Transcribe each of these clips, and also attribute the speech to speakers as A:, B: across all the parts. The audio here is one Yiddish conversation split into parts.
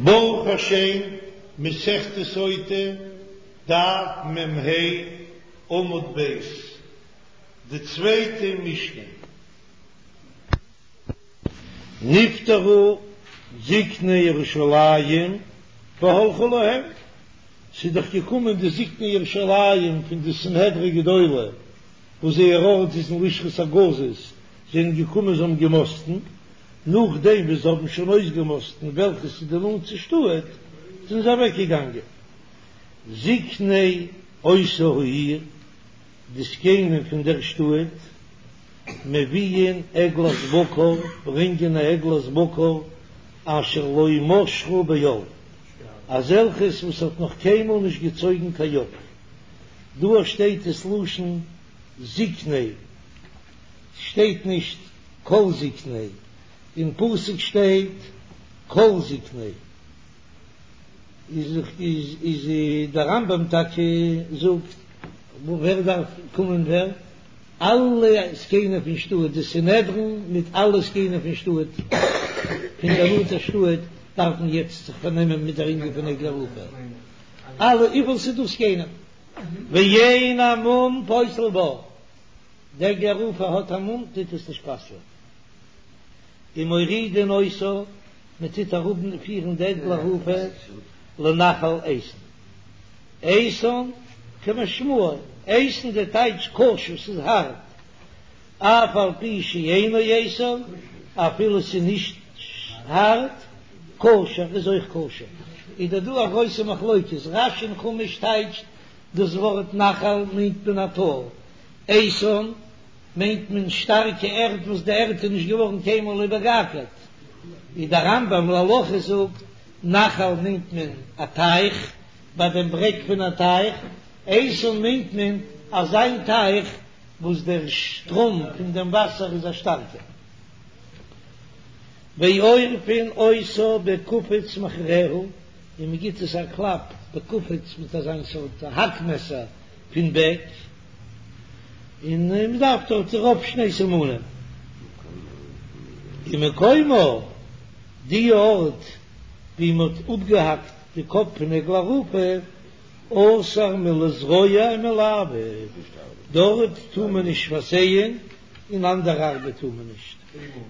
A: ברוך השם, מסכת סוטה, דף מ"ה, עמוד ב', די צווייטע משנה. נפטרו זקני ירושלים והלכו להם, ס'איז דאך געקומען די זקני ירושלים פון די סנהדרי גדולה, וואס זייער ארט איז אין לשכת הגזית, זענען געקומען זיי האבן געמאסטן, נאכדעם וואס זיי האבן שוין אויסגעמאסטן וועלכעס איז די נאנטסטע שטאט, זענען זיי אוועקגעגאנגען. זקני אותה העיר, די זקנים פון דער שטאט, מביאין עגלת בקר, ברענגען א עגלת בקר אשר לא משכה בעול, אזעלכעס וואס האט נאך קיינמאל נישט געצויגן קיין יאך. דא שטייט עס לשון זקני, שטייט נישט כל זקני, אין פסוק שטייט כל זקני, איז איז דער רמב"ם טאקע זאגט ווער דארף קומען ווער? אלע זקנים פון שטאט, די סנהדרין מיט אלע זקנים פון שטאט, פון דער נאנטער שטאט, דארפן יעצט זיך פארנעמען מיט דער ענין פון עגלה ערופה, אלע וויפיל ס'איז דא זקנים, ואין המום פוסל בה. די עגלה ערופה האט א מום טוט עס נישט פסל'ען. ומורידין אותה, מען טוט אראפ פירן די עגלה ערופה לנחל איתן. איתן כמשמעו, איתן די טייטש קשה, ס'איז הארט, אף על פי שאינו איתן, אפילו ס'איז נישט הארט, כשר איז אויך כשר. איז דא דא א גרויסע מחלוקת, רש"י אין חומש טייטשט דאס ווארט נחל מיינט מען א טאל, איתן מיינט מען שטארקע ערד וואס די ערד איז נישט געווארן קיינמאל איבערגעאקערט, ווי דער רמב"ם להלכה זאגט, נחל מיינט מען א טייך, ביי דעם ברעג פון א טייך, איתן מיינט מען אזא טייך וואס דער שטראם פון דעם וואסער איז א שטארקער. ועורפין אותה בקופיץ מאחוריה, און מען גיט עס א קלאפ בקופיץ מיט אזיין סארט האק מעסער פון בעק, און מען דארף דארט רוב שני סימנים. ומקומה, די ארט ווי מען האט אפגעהאקט די קאפ פון עגלה ערופה, אסור מלזרוע ומלעבוד, דארט טאר מען נישט פארזייען און אנדערע ארבעט טאר מען נישט,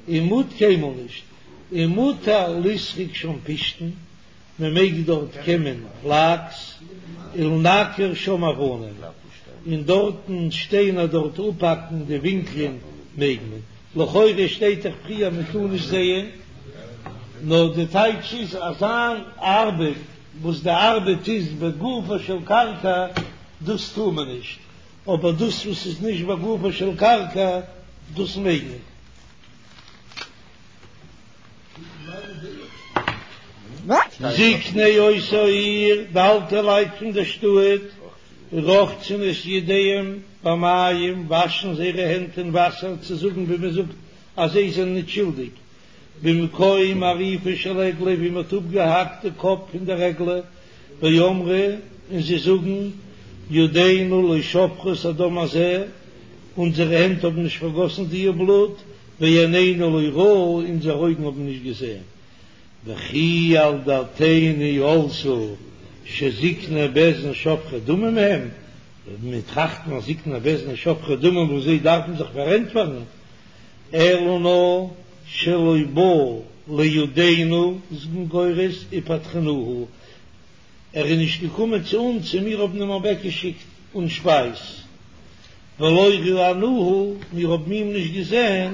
A: ומות קיינמאל נישט, ומותר לסרוק שם פשתן, מען מעג דארט קעמען פלאקס, ולנקר שם אבנים, און דארטן שטיינער דארט אפהאקן די ווינקלען מעג מען, לכאורה שטייט דאך פריער מען טאר נישט זייען, נאר די טייטש איז אזא ארבעט וואס די ארבעט איז בגופה של קרקע דאס טאר מען נישט, אבער דאס וואס איז נישט בגופה של קרקע דאס מעג מען. זקני אותה העיר, די אלטע לייט פון דער שטאט, רוחצין את ידיהם במים, וואשן זייערע הענט אין וואסער, צו זאגן ווי מען זאגט אז זיי זענען נישט שולדיג, במקום עריפה של עגלה, ווי מען האט אפגעהאקט די קאפ פון דער עגלה, ואמרו, און זיי זאגן, ידינו לא שפכו את הדם הזה, אונזערע הענט האבן נישט פארגאסן דיע בלוט, ועינינו לא ראו, אונזערע אויגן האבן נישט געזען. וכי על דעתינו עלתה שזקני בית דין שופכי דמים הם, מיר טראכטן אז זקני בית דין שופכי דמים וואס זיי דארפן זיך פארענטפערן, אלא נאר שלא בא לידינו איז מען גורס ופטרנוהו, ער איז נישט געקומען צו אונז און מיר האבן אים אוועקגעשיקט אן שפייז, ולא ראינוהו, מיר האבן אים נישט געזען,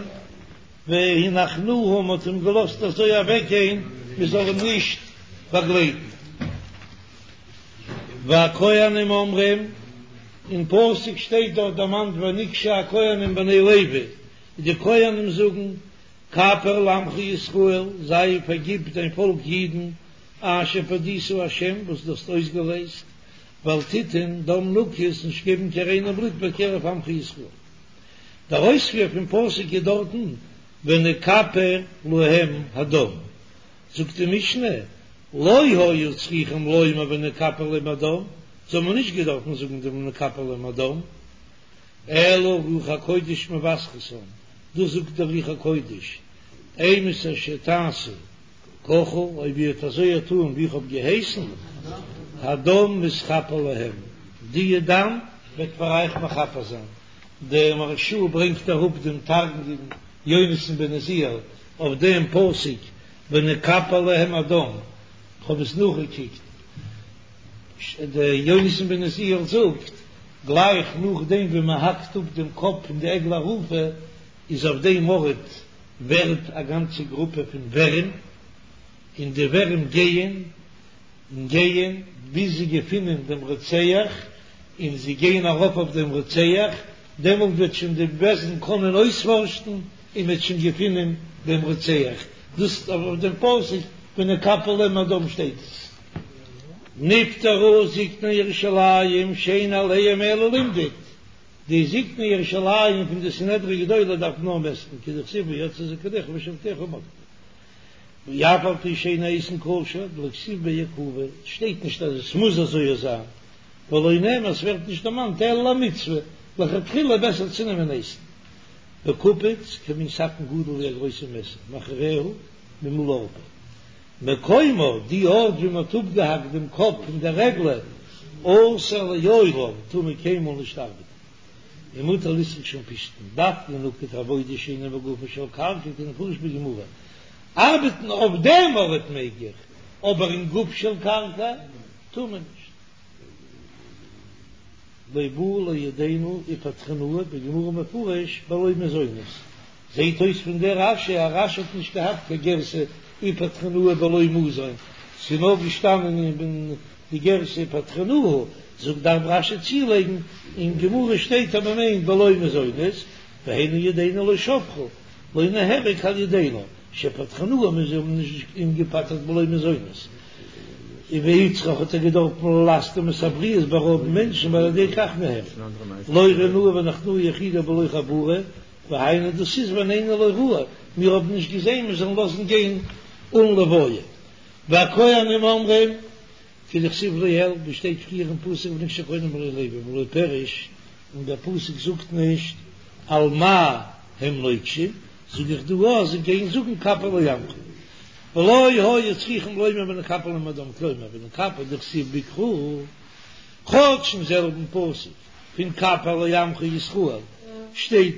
A: והנחנוהו, מען האט אים געלאזט אזוי אוועקגיין מען זאל אים נישט באגלייטן. והכהנים אומרים, אין פסוק שטייט דארט דערמאנט ונגשו הכהנים בני לוי, די כהנים זאגן, כפר לעמך ישראל, זיי פארגיב דיין פאלק אידן, אשר פדית ה', וואס דו האסט אויסגעלייזט, ואל תתן דם נקי, נישט געבן קיין ריינע בלוט בקרב עמך ישראל. דער אויספיר פון פסוק איז דארטן ונכפר להם הדם, זאגט די משנה, לא היו צריכים לומר ונכפר להם הדם, זיי האבן נישט געדארפן זאגן דעם ונכפר להם הדם, אלא רוח הקודש מבשרתם, דאס זאגט דער רוח הקודש, אימתי שתעשו. ככה, אויב איר וועט אזוי טאן ווי איך האב געהייסן, הדם מתכפר להם, די דם וועט פאר אייך מכפר זיין. דער מהרש"א ברענגט אראפ דעם תרגום יונתן בן עוזיאל אויף דעם פסוק ונכפר להם הדם, כ'האב עס נאכגעקוקט, דער יונתן בן עוזיאל זאגט, גלייך נאכדעם ווי מען האקט אפ דעם קאפ פון די עגלה ערופה, איז אויף דעם ארט ווערט א גאנצע גרופע פון ווערים, און די ווערים גייען און גייען ביז זיי געפינען דעם רוצח, און זיי גייען ארויף אויף דעם רוצח, דעמאלט וועט שוין די בית דין קענען אויספארשן און מ'וועט שוין געפינען דעם רוצח, דאס אויף דעם פסוק ונכפר להם הדם שטייט עס. נפטרו זקני ירושלים שאין עליהם אלא למדוד, די זקני ירושלים פון די סנהדרין גדולה דארף נאר מעסטן, כדכתיב ויצאו זקניך ושופטיך ומדדו. ואף על פי שאין האיתן כשר, דלא כתיב ביה עיכובא, שטייט נישט אז עס מוז אזוי זיין, ולא נאמר עס ווערט נישט דערמאנט אלא למצוה, לכתחילה בעסער צו נעמען איתן. וקופיץ כמין סכין גדול ווי א גרויסע מעסער, מאחוריה ממול ערפה. מקומה, די ארט ווי מען האט אפגעהאקט דעם קאפ פון דער עגלה, אסור לעולם, טאר מען קיינמאל נישט ארבעטן. ומותר לסרוק שם פשתן, דווקא נקט עבודה שאינה בגופה של קרקע כדמפרש בגמרא, ארבעטן אויף דעם ארט מעג איך, אבער אין גוף של קרקע טאר מען נישט. לא בא לידינו ופטרנוהו בגמרא מפרש בלא מזונות, זעהט אויס פון דער רש"י אז רש"י האט נישט געהאט קיין גירסא ופטרנוהו בלא מזון, ס'איז נאר געשטאנען אין די גירסא ופטרנוהו, זאגט דארף רש"י צולייגן, אין גמרא שטייט אז מ'מיינט בלא מזונות, והיינו ידינו לא שברו, לא נהרג על ידינו, שפטרנוהו מיר האבן נישט אים געפטר'ט בלא מזונות. והוצרך האט ער געדארפט ללסטם את הבריות בארויבן מענטשן ועל ידי כך נהרג. לא ראינוהו ונחנוהו יחידה בלא חבורה, והיינו דאס איז ועינינו לא ראו, מיר האבן נישט געזען מיר זאלן לאזן גיין אן לוויה. והכהנים אומרים, כדכתיב לעיל, ווי שטייט פריער אין פסוק ונגשו הכהנים בני לוי ולא פירש, און דער פסוק זאגט נישט על מה הם נוגשים, זאג איך דא אז זיי גייען זאגן כפר לעמך. ולא היו צריכים לומר ונכפר להם הדם כלומר ונכפר דכתיב בקרא, כאטש אין זעלבן פסוק פון כפר לעמך ישראל שטייט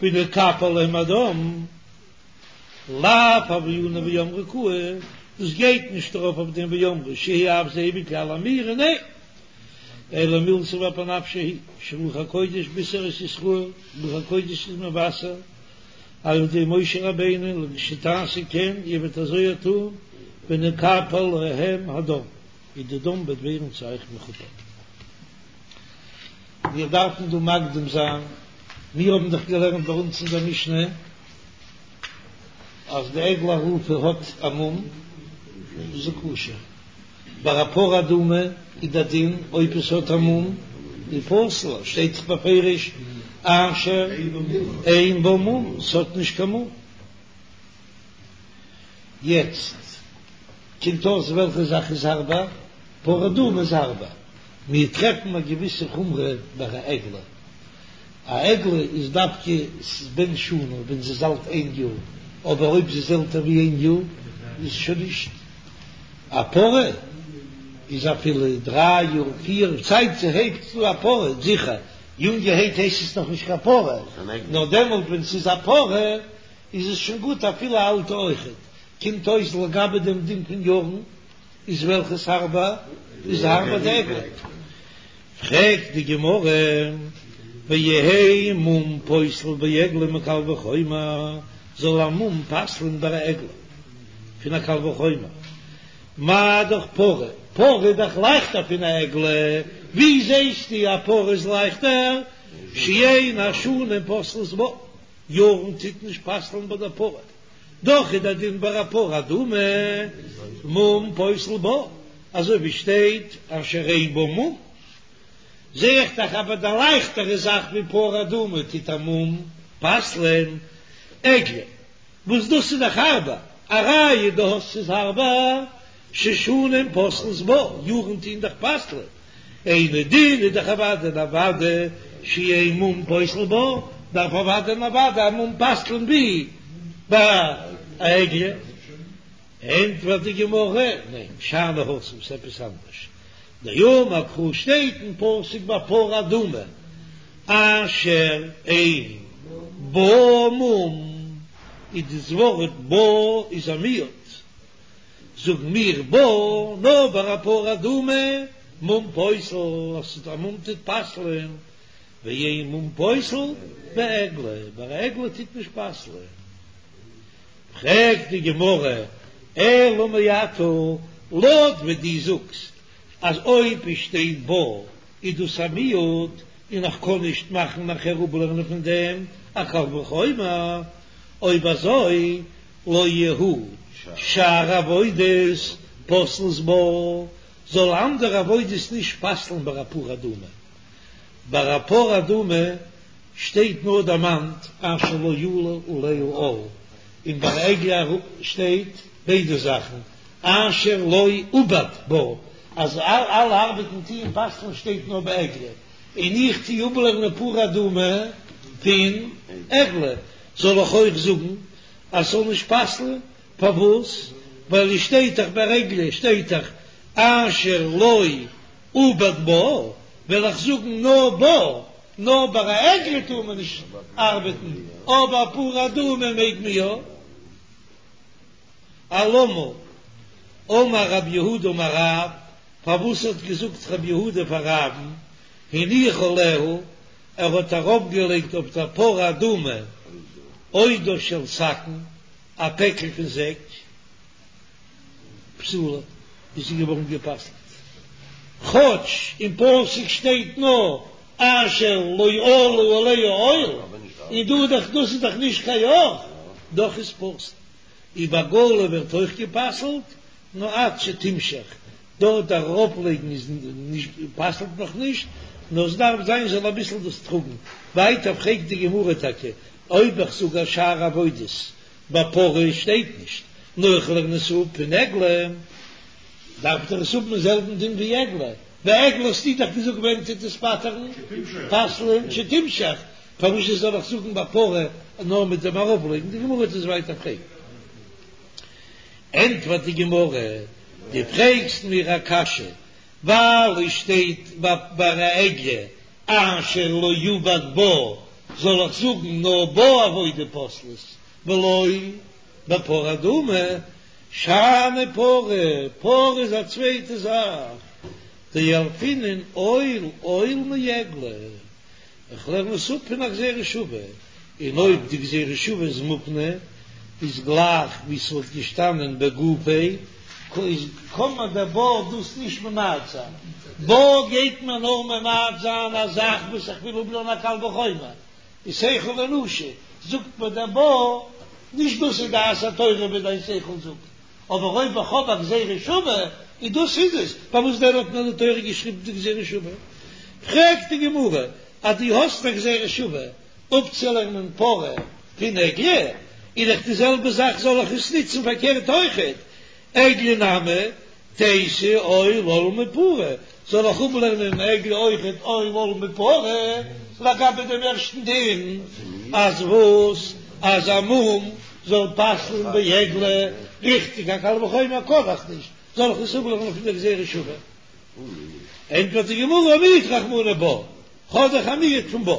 A: ונכפר להם הדם, לאו הוה ענן ואמרו קאי, דאס גייט נישט ארויף אויף דעם ואמרו שהוא אף זה בכלל אמירה ניין, אלא מילתא באפי נפשה היא שרוח הקודש בישר את ישראל, רוח הקודש איז מבשר על ידי משה רבינו לכשתעשו כן, איר וועט אזוי טון, ונכפר להם הדם, און די דם וועט ווערן צו אייך מכופר. מיר דארפן דא מקדים זיין, מיר האבן דאך געלערנט ביי אונז אין דער משנה אז די עגלה ערופה האט א מום, איז זי כשר. ביי א פרה אדומה איז דער דין אויב עס האט א מום איז פסול, שטייט דאך בפירוש אשר אין בה מום, עס האט נישט קיין מום. יעצט קומט אויס וועלכע זאך איז הארבער, פרה אדומה איז הארבער, מיר טרעפן א געוויסע חומרא ביי א עגלה, א עגלה איז דווקא בן שנה ווען זי איז אלט איין יאר, אבער אויב זי איז עלטער ווי איין יאר איז שוין נישט. א פרה איז אפילו דריי יאר פיר צייט זי הייבט אן א פרה זיכער יונגערהייט הייסט עס נאך נישט קיין פרה נאר דעמאלט ווען ס'איז א פרה איז עס שוין גוט אפילו א אלטע אויכעט קומט אויס לגבי דעם דין פון יארן איז וועלכעס הארבער איז הארבער די עגלה. פרעגט די גמרא, ויהא מום פוסל בעגלה מקל וחומר, זאל א מום פסל'ן ביי א עגלה פון א קל וחומר, מה דאך פרה, פרה איז דאך לייכטער פון א עגלה, ווי זעסטו א פרה איז לייכטער, שאין השנים פוסלות בה, יארן טוט נישט פסל'ן ביי דער פרה, דאך איז דער דין ביי א פרה אדומה מום פוסל בה, אזוי ווי שטייט אשר אין בה מום, זע איך דאך אז ביי די לייכטערע זאך ווי פרה אדומה טוט א מום פסל'ען עגלה, וואס דאס איז דאך הארבער, א ראיה דו האסט ס'איז הארבער, ששנים פוסלות בה, יארן טוהן דאך פסל'ען, אינו דין איז דאך אוודאי און אוודאי שאין מום פוסל בה, דארף אוודאי און אוודאי א מום פסל'ען ווי ביי א עגלה. ענטפערט די גמרא, ניין, שאני התם, ס'איז עפעס אנדערש, דאמר קרא שטייט אין פסוק ביי פרה אדומה, אשר אין בה מום, איז דאס ווארט בה איז א מיעוט, זאגן מיר בה נאר ביי א פרה אדומה, מום פוסל, אז א מום טוט פסל'ען, ואין מום פוסל בעגלה, ביי א עגלה טוט נישט פסל'ען. פרעגט די גמרא, אלא מעתה, לויט ווי דו זאגסט אז אויב עס שטייט בה איז דאס א מיעוט און איך קען נישט מאכן נאכער אפלערנען פון דעם א קל וחומר, אויב אזוי לא יהו שאר עבודות פוסלות בה, זאל אנדערע עבודות נישט פסל'ן ביי א פרה אדומה. ביי א פרה אדומה שטייט נאר דערמאנט אשר לא עלה עליה עול, און ביי עגלה שטייט ביידע זאכן אשר לא עובד בה, אז אלע ארבעטן טוען פסל'ן שטייט נאר ביי עגלה, און איך טוה אפלערנען פרה אדומה פון עגלה, זאל איך אויך זאגן אז ס'זאל נישט פסל'ן? פארוואס? ווייל עס שטייט דאך ביי עגלה שטייט דאך אשר לא עובד בה, וועל איך זאגן נאר בה, נאר ביי א עגלה טאר מען נישט ארבעטן, אבער פרה אדומה מעג מען יא. אלמה אמר רב יהודה אמר רב, פארוואס האט געזאגט רב יהודה פאר רב'ן, הניח עליה, ער האט ארויפגעלייגט אויף דער פרה אדומה עודה של שקין, א פעקל פון זעק. פסולה, איז זי געווארן גע'פסל'ט, כאטש אין פסוק שטייט נאר אשר לא עלה עליה עול, און דא איז דאך דאס איז דאך נישט קיין יאך, דאך איז פסול. און בעגלה ווערט אויך גע'פסל'ט, נאר עד שתמשך, דארט ארויפלייגן איז נישט פסל'ט נאך נישט, נאר עס דארף זיין זאל אביסל דאס טראגן. ווייטער פרעגט די גמרא טאקע אויב איך זאג אז שאר עבודות ביי פרה שטייט נישט, נאר איך לערן עס אפ פון עגלה, דארף דאך עס האבן דעם זעלבן דין ווי עגלה, ביי עגלה האסטו דאך געזאגט ווען טוט עס פטר'ן, פסל'ען, שתמשך, פארוואס זאל איך זאגן ביי פרה נאר מיט דעם ארויפלייגן, די גמרא וועט עס ווייטער פרעגן. ענטפערט די גמרא, דו פרעגסט מיר א קשיא, ווייל עס שטייט ביי א עגלה אשר לא עובד בה, זאל איך זאגן נאר בה עבודה פוסלת ולא בפרה אדומה, שאני פרה, פרה איז א צווייטע זאך, דילפינן עול עול מעגלה, איך לערן עס אפ פון א גזירה שווה, און אויב די גזירה שווה איז מופנה, איז גלייך ווי ס'וואלט געשטאנען בגופיה, איז קען מען דער בה דאס נישט ממעט זיין, בה גייט מען נאר ממעט זיין א זאך וואס איך וויל אפלערנען א קל וחומר, איז שכל אנושי, זאגט מיר דער בה, נישט דאס איז דעת התורה ווי דיין שכל זאגט, אבער אויב איך האב א גזירה שווה, איז דאס איז עס, פארוואס דען האט מיר די תורה געשריבן די גזירה שווה? פרעגט די גמרא, אז דו האסט א גזירה שווה אפצולערנען פרה פון עגלה, איז דאך די זעלבע זאך זאל איך עס נוצן פארקערט אויכעט, עגלה נמי תיתי עול עול מפרה, זאל איך אפלערנען עגלה אויכעט עול עול מפרה, לגבי דעם ערשטן דין אז וואס אז א מום זאל פסל'ן בעגלה, ריכטיג א קל וחומר קען איך נישט, זאל איך עס אפלערנען פון דער גזירה שווה? ענטפערט די גמרא מיעט רחמנא בה, כ'האב דאך א מיעוט פון בה,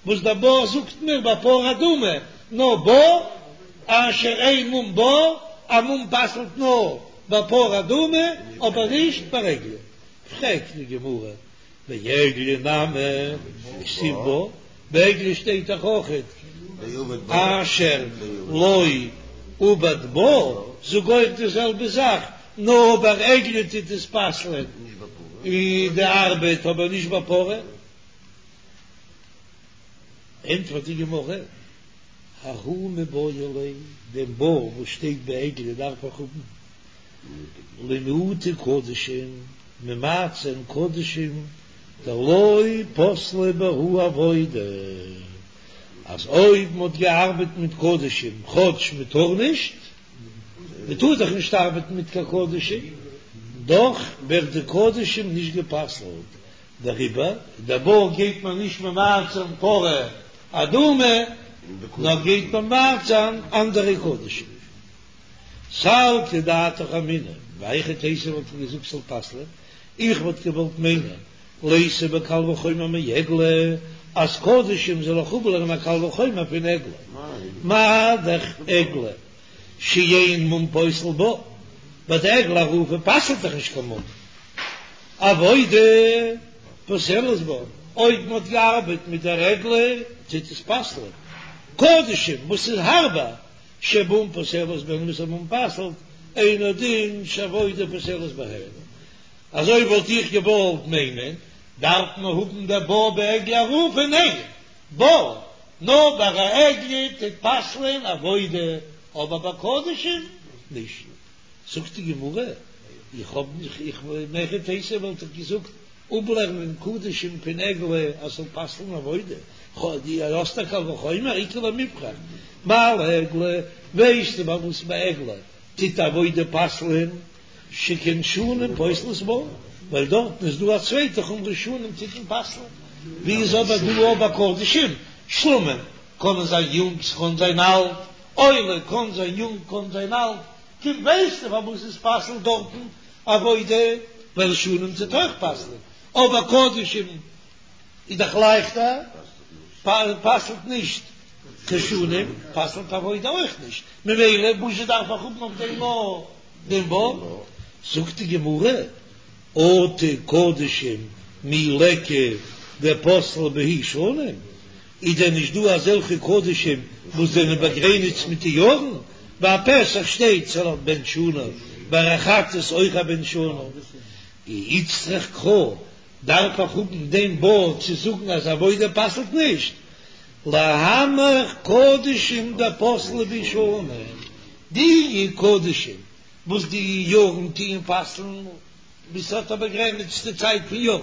A: וואס דער בה זאגט מיר ביי פרה אדומה, נאר בה, אשר אין מום בה, א מום פסל'ט נאר ביי פרה אדומה, אבער נישט ביי עגלה. פרעגט די גמרא, בעגלה נמי כתיב בה, ביי עגלה שטייט דאך אויכעט אשר לא עובד בה, זאג אויך די זעלבע זאך, נאר ביי עגלה טוט עס פסל'ען די ארבעט אבער נישט ביי פרה. ענטפערט די גמרא, ההוא מיבעי ליה, דעם בה וואס שטייט ביי עגלה דארף איך האבן למעוטי קדשים, ממעט זיין קדשים דלא פסלה בהו עבודה, אז אויב מ'האט געארבעט מיט קדשים כאטש מ'טאר נישט, מ'טאר דאך נישט ארבעטן מיט קיין קדשים, דאך ווערט די קדשים נישט גע'פסל'ט, דעריבער דער בה גייט מען נישט ממעט זיין פרה אדומה, נאר גייט ממעט זיין אנדערע קדשים. סלקא דעתך אמינא, מהיכי תיתי וואלט איך געזאגט ס'זאל פסל'ען, איך וואלט געוואלט מיינען ליתי בקל וחומר מעגלה, אז קדשים זאל איך אפלערנען א קל וחומר פון עגלה, מה דאך עגלה שאין מום פוסל בה, ביי די עגלה ערופה פסל'ט דאך נישט קיין מום, עבודה פוסלת בה, אויב מען האט געארבעט מיט דער עגלה טוט עס פסל'ען, קדשים וואס איז הארבער שמום פוסלת בהן וואס א מום פסל'ט, אינו דין שעבודה פוסלת בהן. אזוי וואלט איך געוואלט מיינען, דארף מען האבן דער בה בעגלה ערופה? ניין, בה נאר ביי א עגלה טוט פסל'ען עבודה, אבער ביי קדשים נישט. זאגט די גמרא, איך האב נישט, איך מהיכי תיתי וואלט איך געזאגט אפלערנען קדשים פון עגלה אז ס'זאל פסל'ן עבודה, דו האסט א קל וחומר, איכא למיפרך, מה לעגלה, ווייסטו ביי וואס ביי עגלה טוט עבודה פסל'ען? שכן שנים פוסלות בה, ווייל דארטן איז דא א צווייטע חומרא שנים טוט מען פסל'ן, ווי איז אבער דא ביי קדשים? שלמים קענען זיין יונג ס'קען זיין אלט, עולה קען זיין יונג קען זיין אלט, קומט ווייסטו פארוואס עס פסל'ט דארטן עבודה, ווייל שנים טוט אויך פסל'ן, אבער קדשים איז דאך לייכטער, פסל'ט נישט קיין שנים, פסל'ט עבודה אויך נישט, ממילא וואזשע דארף איך האבן אויף דעם א דעם בה? זאגט די גמרא, אטו קדשים מי ליכא דפסלי בהו שנים, איז דען נישט דא אזעלכע קדשים וואס זענען באגרעניצט מיט די יארן? ביי א פסח שטייט ס'זאל א בן שנה, ביי א חטאת אויך א בן שנה, איצטריך קרא דארף איך האבן דעם בה צו זאגן אז עבודה פסל'ט נישט, להנך קדשים דפסלי בהו שנים, די קדשים וואס די יארן טוען פסל'ן, וואס האט א באגרעניצטע צייט פון יארן,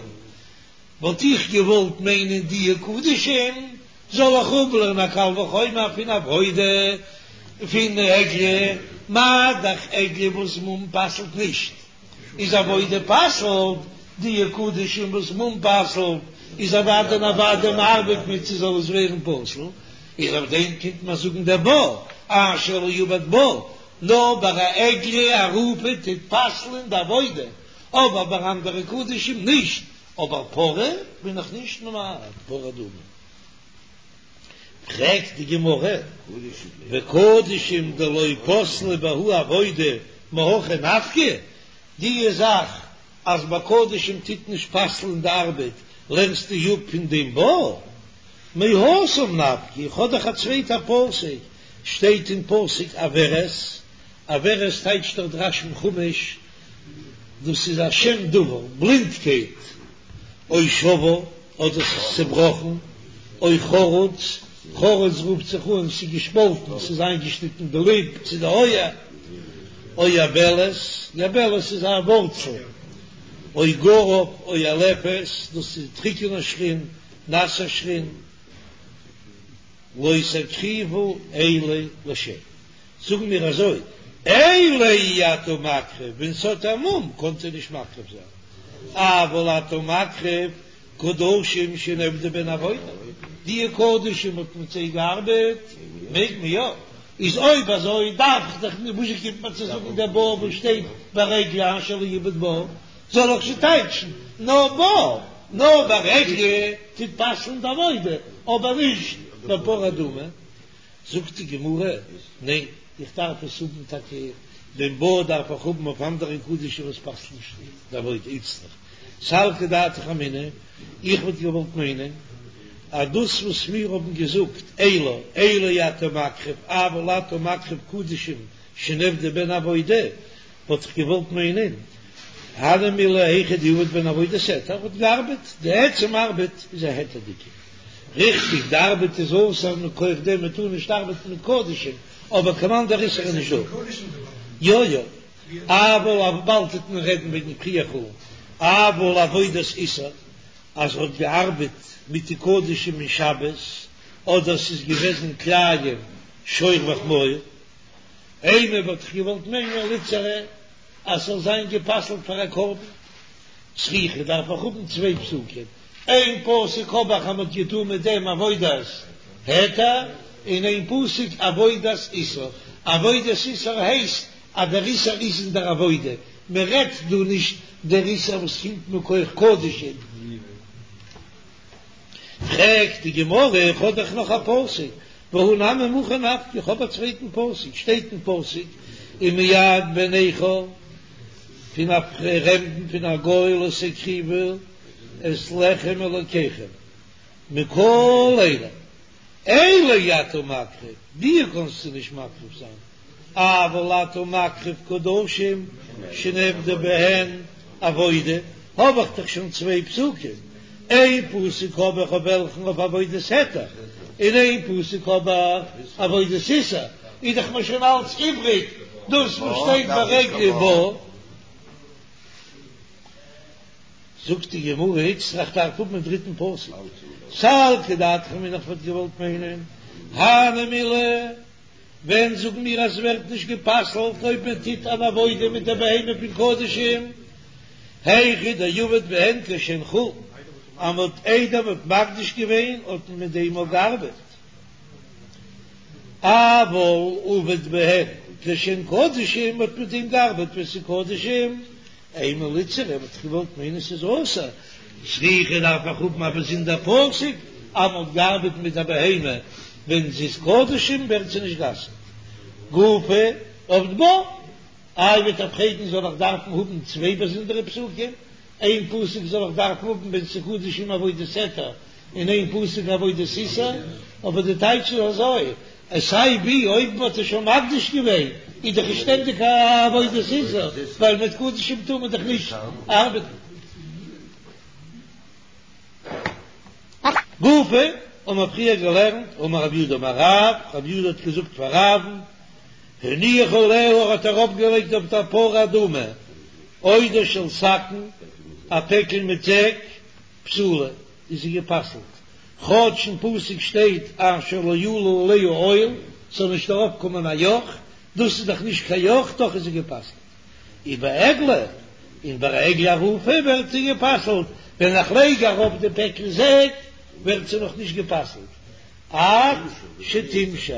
A: וואלט איך געוואלט מיינען די קדשים זאל איך אפלערנען א קל וחומר פון עבודה פון עגלה, מה דאך עגלה וואס מום פסל'ט נישט. איז עבודה פסל'ט, די קדשים וואס מום פסל'ט איז אוודאי און אוודאי מ'ארבעט מיט ס'זאל עס ווערן פסול, איז אויף דעם קומט מען זאגן דער בה אשר לא עבד בה, נאר ביי א עגלה ערופה טוט פסל'ן די עבודה, אבער ביי אנדערע קדשים נישט, אבער פרה בין איך נישט ממעט, פרה אדומה. פרעגט די גמרא, וקדשים דלא פסלה בהו עבודה מהכא נפקא, די זאך אז ביי קדשים טוט נישט פסל'ן די ארבעט לערנסטו אפ פון דעם בה? מהתם נפקא, איך האב דאך א צווייטע פסוק, שטייט אין פסוק עורת, עורת טייטשט דאך דער רש"י אין חומש, דאס איז א שם דבר, בלינדקייט, או שבור, אדער ס'איז צעבראכן, או חרוץ, חרוץ רופט זיך אן ס'איז געשפאלטן, ס'איז איינגעשניטן די ליפ צו די אויער, או יבלת, יבלת איז א ווארצל, או גרב, או עלפת, דאס איז טריקענע שחין, נאסע שחין, לא תקריבו אלה לשם. זאגן מיר אזוי, אלה אי אתה מקריב, ווען ס'האט א מום קענסטו נישט מקריב זיין, אבל אתה מקריב קדשים שנעבדה בהן עבודה, די קדשים האט מיט זיי געארבעט, מעג מען יא, איז אויב אזוי דארף איך דאך נישט, וואס קומט מיר צו זאגן דער בה וואס שטייט ביי עגלה אשר לא עבד בה, זאל איך שוין טייטשן נאר בה, נאר ביי עגלה טוט פסל'ן די עבודה, אבער נישט ביי פרה אדומה. זאגט די גמרא, ניין, איך דארף עס האבן טאקע, דעם בה דארף איך האבן אויף אנדערע קדשים וואס פסל'ן נישט די עבודה, איצטריך סלקא דעתך אמינא, איך וואלט געוואלט מיינען אז דאס וואס מיר האבן געזאגט אלה אלה אי אתה מקריב אבל אתה מקריב קדשים שנעבדה בהן עבודה, וואלט איך געוואלט מיינען, הני מילי היכא דעבד בהן עבודת היתר, האט געארבעט, די עצם ארבעט איז א היתר'דיגע, ריכטיג די ארבעט איז אסור מכח דעם מען טאר נישט ארבעטן מיט קדשים, אבער קיין אנדער איסור איז נישט דא. יא יא, אבל אויף באלד טוט מען רעדן וועגן פריעה חולין, אבל עבודת איסור, אז ער האט געארבעט מיט די קדשים אין שבת, אדער ס'איז געוועזן כלאים שור וחמור, אימא וואלט איך געוואלט מיינען ליתסרא אז ס'זאל זיין גע'פסל'ט פאר א קרבן, צריכא דארף איך האבן צוויי פסוקים, איין פסוק האב איך אז מ'האט געטון מיט דעם עבודת היתר, און איין פסוק עבודת איסור, עבודת איסור הייסט. אז דער איסור איז אין דער עבודה, מען רעדט דא נישט דער איסור וואס קומט מכח קדשים. פרעגט די גמרא, איך האב דאך נאך א פסוק, והא נמי מהכא נפקא, איך האב א צווייטן פסוק, שטייט אין פסוק, ומיד בן נכר, פון א פרעמדן פון א גוי לא תקריבו את לחם אלוקיכם, מכל אלה, אלה אי אתה מקריב, די קענסטו נישט מקריב זיין, אבל אתה מקריב קדשים שנעבדה בהן עבודה, האב איך דאך שוין צוויי פסוקים, איין פסוק האב איך אויף וועלכן אויף עבודת היתר, און איין פסוק האב איך עבודת איסור, איז דאך מיר שוין אלץ איבריג דאס וואס שטייט ביי עגלה בה. זאגט די גמרא, איצטריך דארף האבן א דריטן פסוק, סלקא דעתך אמינא איך וואלט געוואלט מיינען, הני מילי, ווען זאגן מיר אז ס'ווערט נישט גע'פסל'ט אויב מען טוט אן עבודה מיט די בהמה פון קדשים, היכא דעבד בהן כשהן חולין, אז מ'האט איידער מ'האט מקדיש געווען האט מען מיט דעם אויך געארבעט, אבל עבד בהן כשהן קדשים, מ'האט מיט דעם געארבעט ווען ס'איז קדשים, אימא ליתסר, וואלט איך געוואלט מיינען ס'איז אסור, צריכא דארף איך האבן א באזונדער פסוק אז מ'האט געארבעט מיט א בהמה ווען זי איז קדשים ווערט זי נישט גע'אסר'ט. גופא עבד בה, איי וועט איר פרעגן זאל איך דארפן האבן צוויי באזונדערע פסוקים, איין פסוק זאל איך דארפן האבן ווען ס'איז קדשים עבודת היתר און איין פסוק עבודת איסור, אבער די טייטש איז אזוי, אז סיי ווי אויב מ'האט עס שוין מקדיש געווען איז דאך עס שטענדיג א עבודת איסור, ווייל מיט קדשים טאר מען דאך נישט ארבעטן. גופא האבן מיר פריער געלערנט, אמר רב יהודה אמר רב, רב יהודה האט געזאגט פאר רב'ן, הניח עליה ער האט ארויפגעלייגט אויף דער פרה אדומה עודה של שקין, א פעקל מיט זעק, פסולה, איז זי גע'פסל'ט, כאטש אין פסוק שטייט אשר לא עלה עליה עול, ס'זאל נישט ארויף קומען א יאך, דאס איז דאך נישט קיין יאך, דאך איז זי גע'פסל'ט. ובעגלה, און ביי א עגלה ערופה ווערט זי גע'פסל'ט, ווען איך לייג ארויף די פעקל זעק ווערט זי נאך נישט גע'פסל'ט, עד שתמשך,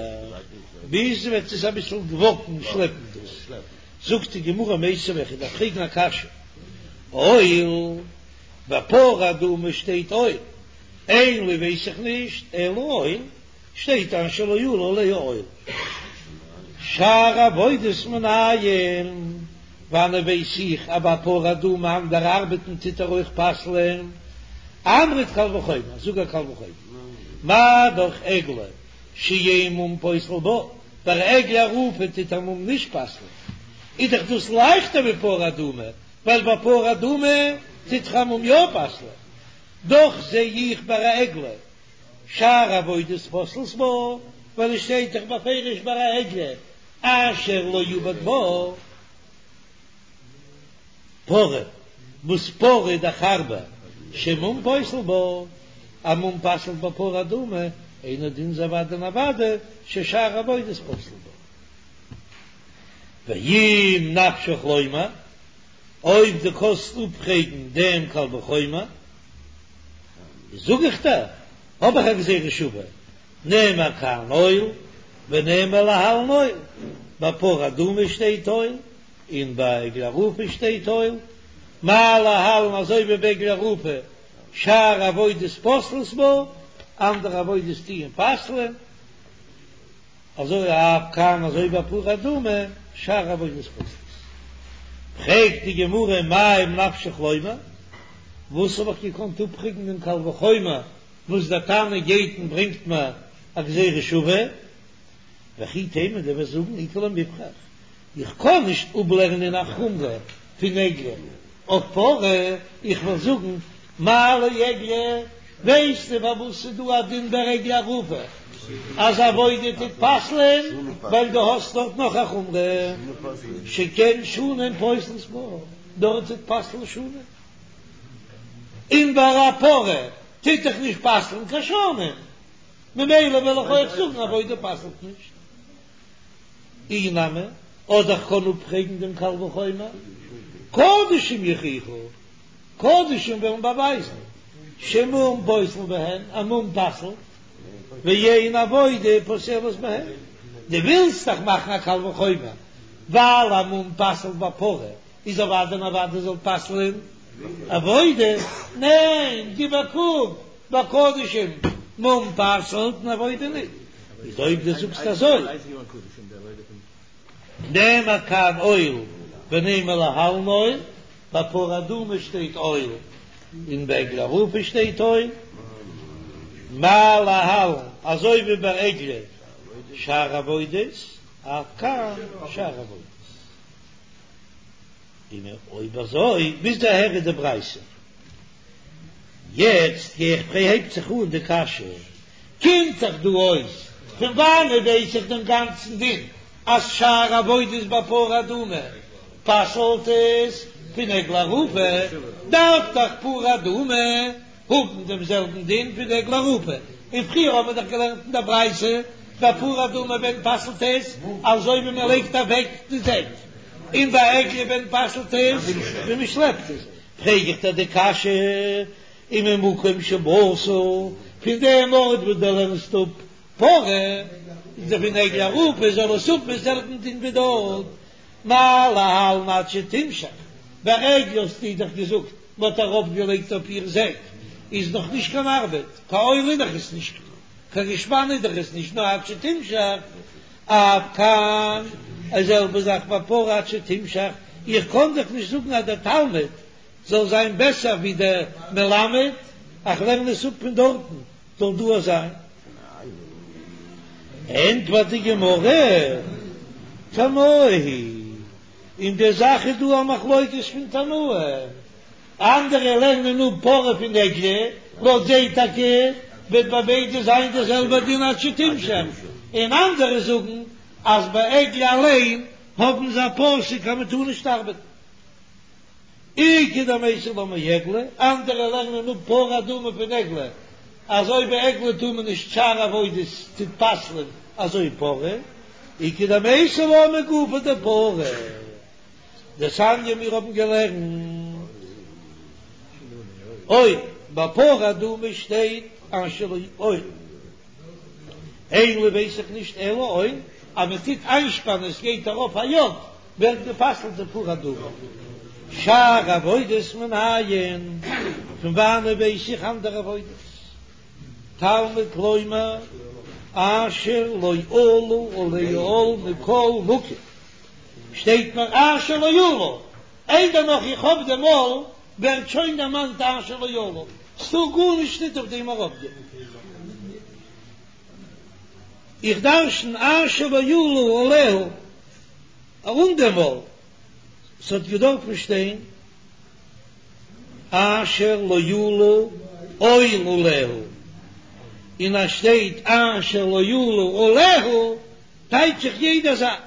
A: ביז זי וועט עס אביסל וואקן, שלעפן דאס. זאגט די גמרא מיתיבי, איך דארף פרעגן א קשיא, עול. ביי פרה אדומה שטייט עול, אין לי ווייס איך נישט, אלא עול, שטייט אשר לא עלה עליה עול. שאר עבודות מנין, וואנען ווייס איך אז ביי פרה אדומה אנדערע ארבעטן טוט ער אויך פסל'ען? אמרת קל וחומר, זאג א קל וחומר, מה דאך עגלה שאין מום פוסל בה, ביי עגלה ערופה טוט א מום נישט פסל'ען, איז דאך דאס לייכטער ווי פרה אדומה, ווייל ביי פרה אדומה טוט דאך א מום יא פסל'ען, דאך זע איך ביי א עגלה שאר עבודות פוסלות בה, ווייל עס שטייט דאך בפירוש ביי א עגלה אשר לא עבד בה פרה, וואס פרה איז דאך הארבער שמום פוסל בה, א מום פסל'ט ביי פרה אדומה, אינו דין איז אוודאי און אוודאי ששאר עבודות פוסלות בה. ואם נפשך לומר, אויב דו קאנסט אפפרעגן דעם קל וחומר, זאג איך דיר, האב איך א גזירה שווה, נאמר כאן עול ונאמר להלן עול, ביי פרה אדומה שטייט עול, און ביי עגלה ערופה שטייט עול, מה להלן אזוי ווי ביי עגלה ערופה שאר עבודות פוסלות בה, אנדערע עבודות טוען פסל'ען. אזוי אף כאן אזוי ביי פרה אדומה שאר עבודות פוסלות. פרעגט די גמרא מאי אם נפשך לומר, וואס האב איך געקאנט אפפרעגן דעם קל וחומר וואס דער תנא גייט און ברענגט מיר א גזירה שווה? וכי תימא דו וועסט זאגן איכא למיפרך, איך קען נישט אפלערנען א חומרא פון עגלה אויף פרה, איך וועל זאגן מה לעגלה, ווייסטו פארוואס ס'איז דא א דין ביי עגלה ערופה אז עבודה טוט פסל'ען, ווייל דו האסט דארט נאך א חומרא שכן שנים פוסלות בה, דארט טוט פסל'ן שנים, און ביי א פרה טוט דאך נישט פסל'ן קיין שנים, ממילא וועל איך אויך זאגן עבודה פסל'ט נישט. אי נמי, אדער איך קען אפפרעגן דעם קל וחומר, קדשים יוכיחו, קדשים וועלן באווייזן, שמום פוסל בהן, א מום פסל'ט, ואין עבודה פוסלת בהן. דו ווילסט דאך מאכן א קל וחומר. ווייל א מום פסל'ט ביי פרה איז אוודאי און אוודאי זאל פסל'ען עבודה, ניין גיב א קוק ביי קדשים מום פסל'ט און עבודה ניט, איז אויב דו זאגסט אזוי נאמר כאן עול ונימא להלן עול, ביי פרה אדומה שטייט עול און ביי עגלה ערופה שטייט עול, מה להלן אזוי ווי ביי עגלה שאר עבודות אף כאן שאר עבודות. און אויב אזוי ביז אהער איז די ברייתא. יעצט גיי איך פרעגן הייבט זיך אן די קשיא, קומט דאך דא אויס פון וואנעט ווייס איך דעם גאנצן דין אז שאר עבודות ביי פרה אדומה פסל'ט עס פון עגלה ערופה, דארף דאך פרה אדומה האבן דעם זעלבן דין פון עגלה ערופה, און פריער האבן מיר דאך געלערנט אין דער ברייתא ביי פרה אדומה ווען פסל'ט עס אזוי ווי מען לייגט אוועק די זעק, און ביי עגלה ווען פסל'ט עס ווען מען שלעפט עס, פרעג איך דיר די קשיא, וממקום שבאת, פון דעם ארט וואס דו לערנסט אפ פרה, איז דאך פון עגלה ערופה זאל עס האבן דעם זעלבן דין ווי דארט, מה להלן עד שתמשך, ביי עגלה האסטו דאך געזאגט מ'האט ארויפגעלייגט אויף איר זעק, איז נאך נישט קיין ארבעט, קיין עול איז דאך עס נישט, קיין געשפאן איז דאך עס נישט, נאר עד שתמשך, אף כאן, די זעלבע זאך ביי פרה עד שתמשך, איך קען דאך נישט זאגן אז דער תלמיד זאל זיין בעסער ווי דער מלמד, איך לערן עס אפ פון דארטן, זאל דא זיין. ענטפערט די גמרא, תנאי היא, אין די זאך איז דא א מחלוקת פון תנאים, אנדערע לערנען אפ פרה פון עגלה, לויט זיי טאקע וועט ביי ביידע זיין די זעלבע דין עד שתמשך, און אנדערע זאגן אז ביי עגלה אליין האבן זיי א פסוק אז מען טאר נישט ארבעטן. איכא דמייתי לה מעגלה, אנדערע לערנען אפ פרה אדומה פון עגלה, אזוי ביי עגלה טאר מען נישט שאר עבודות טוט פסל'ען אזוי פרה, איכא דמייתי לה מגופה דפרה, דתניא מיר האבן געלערנט עול ביי פרה אדומה שטייט אשר לא עול. אין לי ווייס איך נישט אלא עול, אז מען טוט איינשפאנען עס גייט ארויף א יאך ווערט גע'פסל'ט די פרה אדומה. שאר עבודות מנין, פון וואנען ווייס איך אנדערע עבודות? תלמוד לומר אשר לא עלה עליה עול מכל מקום, שטייט מיר אשר לא עלה, איידער נאך איך האב דעם עול ווערט שוין דערמאנט אשר לא עלה, ס'טאר גארנישט ניט אויף דעם ארויפגיין. איך דרשן אשר לא עלה עליה ארום דעם עול, ס'האט געדארפן שטיין אשר לא עלה עול עליה, און אז שטייט אשר לא עלה עליה טייטש איך יעדע זאך.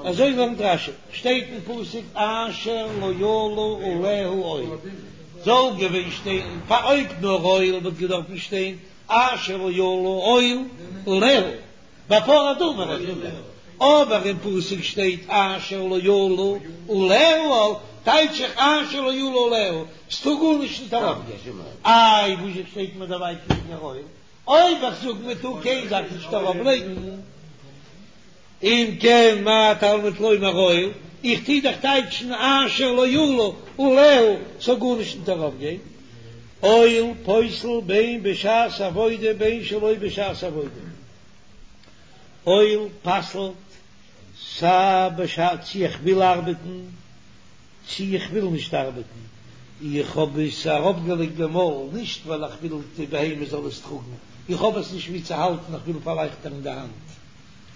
A: אזוי לערנט רש"י, שטייט אין פסוק אשר לא עלה עליה עול, זאל געווען שטיין פאר אויב נאר עול וואלט געדארפן שטיין אשר לא עלה עול עליה, ביי פרה אדומה רעדט מען, אבער אין פסוק שטייט אשר לא עלה עליה עול, טייטש איך אשר לא עלה עליה, ס'טאר גארנישט נישט ארויפגיין, איי וואזשע שטייט מיר דערביי קעגן עול? אויב איך זאג מען טאר קיין זאך נישט ארויף לייגן, אם כן מה תלמוד לומר עול, איך טוה דאך טייטשן אשר לא עלה עליה ס'זאל גארנישט נישט ארויף גיין, עול פוסל בין בשעת עבודה בין שלא בשעת עבודה, עול פסל'ט סיי בשעת צו איך וויל ארבעטן צי איך וויל נישט ארבעטן, איך האב עס אראפגעלייגט דעם עול, נישט ווייל איך וויל די בהמה זאל עס טראגן, איך האב עס נישט וואו צו האלטן, איך וויל פארלייכטערן די האנט,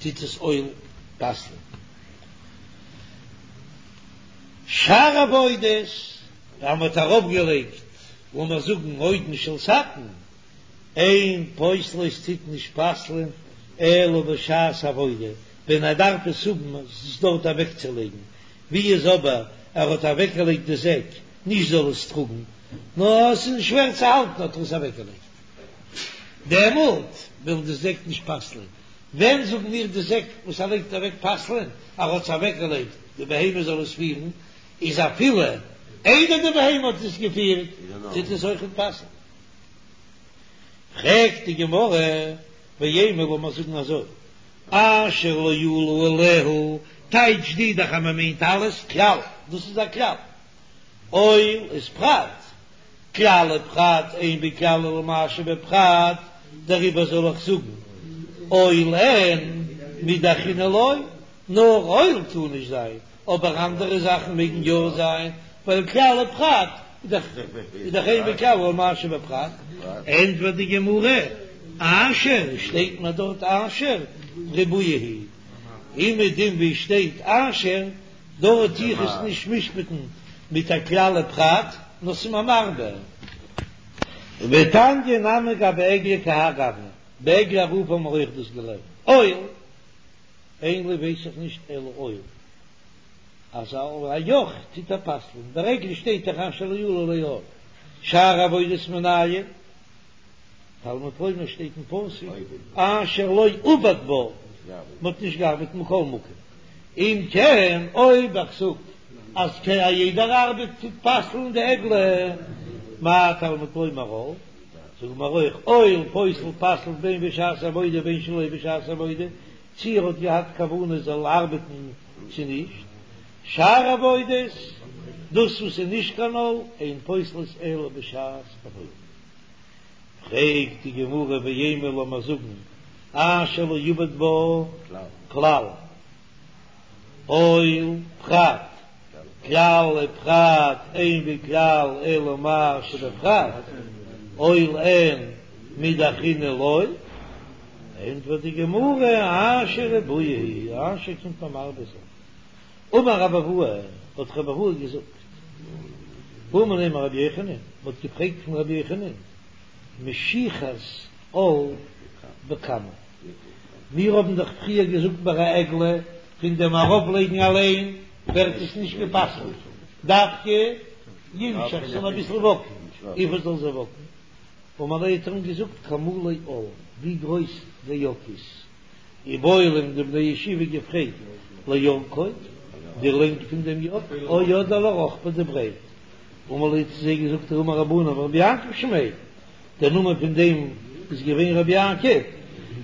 A: טוט עס עול פסל'ן. שאר עבודות, אז מ'האט אראפגעלייגט, לאמיר זאגן עודן של סכין, אין פוסלות טוט נישט פסל'ן אלא בשעת עבודה, ווען ער דארף עס האבן עס דארט אוועקצולייגן, ווי איז אבער ער האט אוועקגעלייגט די זעק נישט זאל עס טראגן, נאר עס איז שווער צו האלטן האט ער עס אוועקגעלייגט, דעמאלט וויל די זעק נישט פסל'ען, ווען זאגן מיר די זעק וואס ער לייגט אוועק פסל'ען, ער האט עס אוועקגעלייגט די בהמה זאל עס פירן, איז אפילו איידער די בהמה האט עס געפירט טוט עס אויכעט פסל'ן. פרעגט די גמרא, ואימא לאמיר זאגן אזוי. אשר לא עלו עליה, טייטש די דאך אז מען מיינט אלעס כלל, דאס איז א כלל, עול איז פרט, כלל ופרט אין בכלל אלא מה שבפרט, דעריבער זאל איך זאגן עול אין מידי אחרינא לא, נאר עול טאר נישט זיין, אבער אנדערע זאכן מעגן יא זיין, ווייל כלל ופרט איז דאך אין בכלל אלא מה שבפרט. ענטפערט די גמרא, אשר, שטייט מיר דארט אשר, ריבויא הוא, אומעדום ווי שטייט אשר, דארט טו איך עס נישט משפט'ן מיט א כלל ופרט, נאר ס'איז מיר מרבה. ותניא נמי גבי עגלה כי האי גוונא, ביי עגלה ערופה האבן מיר אויך דאס געלערנט, עול, אין לי ווייס איך נישט אלא עול, אז א יאך טוט ער פסל'ן, ביי עגלה שטייט דאך אשר לא עלה עליה עול, שאר עבודות מנין, תלמוד לומר שטייט אין פסוק אשר לא עבד בה, מען האט נישט געארבעט מכל מקום, אם כן אויב איך זאג אז א יעדער ארבעט טוט פסל'ן די עגלה, מה תלמוד לומר עול, זאג מיר אויך עול פוסל פסל'ט בין בשעת עבודה בין שלא בשעת עבודה, צי ער האט געהאט כוונה זאל ארבעטן צו נישט, שאר עבודות, דאס וואס איז נישט קיין עול, אין פוסלות אלא בשעת עבודה. פרעגט די גמרא ואימא לאמיר זאגן אשר לא עבד בה כלל עול פרט כלל ופרט אין בכלל אלא מה שבפרט עול אין מידי אחרינא לא, ענטפערט די גמרא אשר ריבויא הוא אשר קומט מיר מרבה זיין. אמר רבי אבהו, האט רבי אבהו געזאגט, בעו מיניה מרבי יוחנן, מען האט געפרעגט פון רבי יוחנן, משיכת עול בכמה, מיר האבן דאך פריער געזאגט ביי א עגלה, פון דעם ארויפלייגן אליין ווערט עס נישט גע'פסל'ט, דווקא ימשך זאל אביסל וואקן, וויפיל זאל זי וואקן? אמר להו האט ער אים געזאגט כמלא עול, ווי גרויס די יאך איז. איבעיא להו האבן די בני ישיבה געפרעגט לאורכו, די לענג פון דעם יאך, או אדער לרוחבו די ברייט, אמר להו האט צו זיי געזאגט ההוא מרבנן ורבי יעקב שמיה, דער נאמען פון דעם איז געווען רבי יעקב,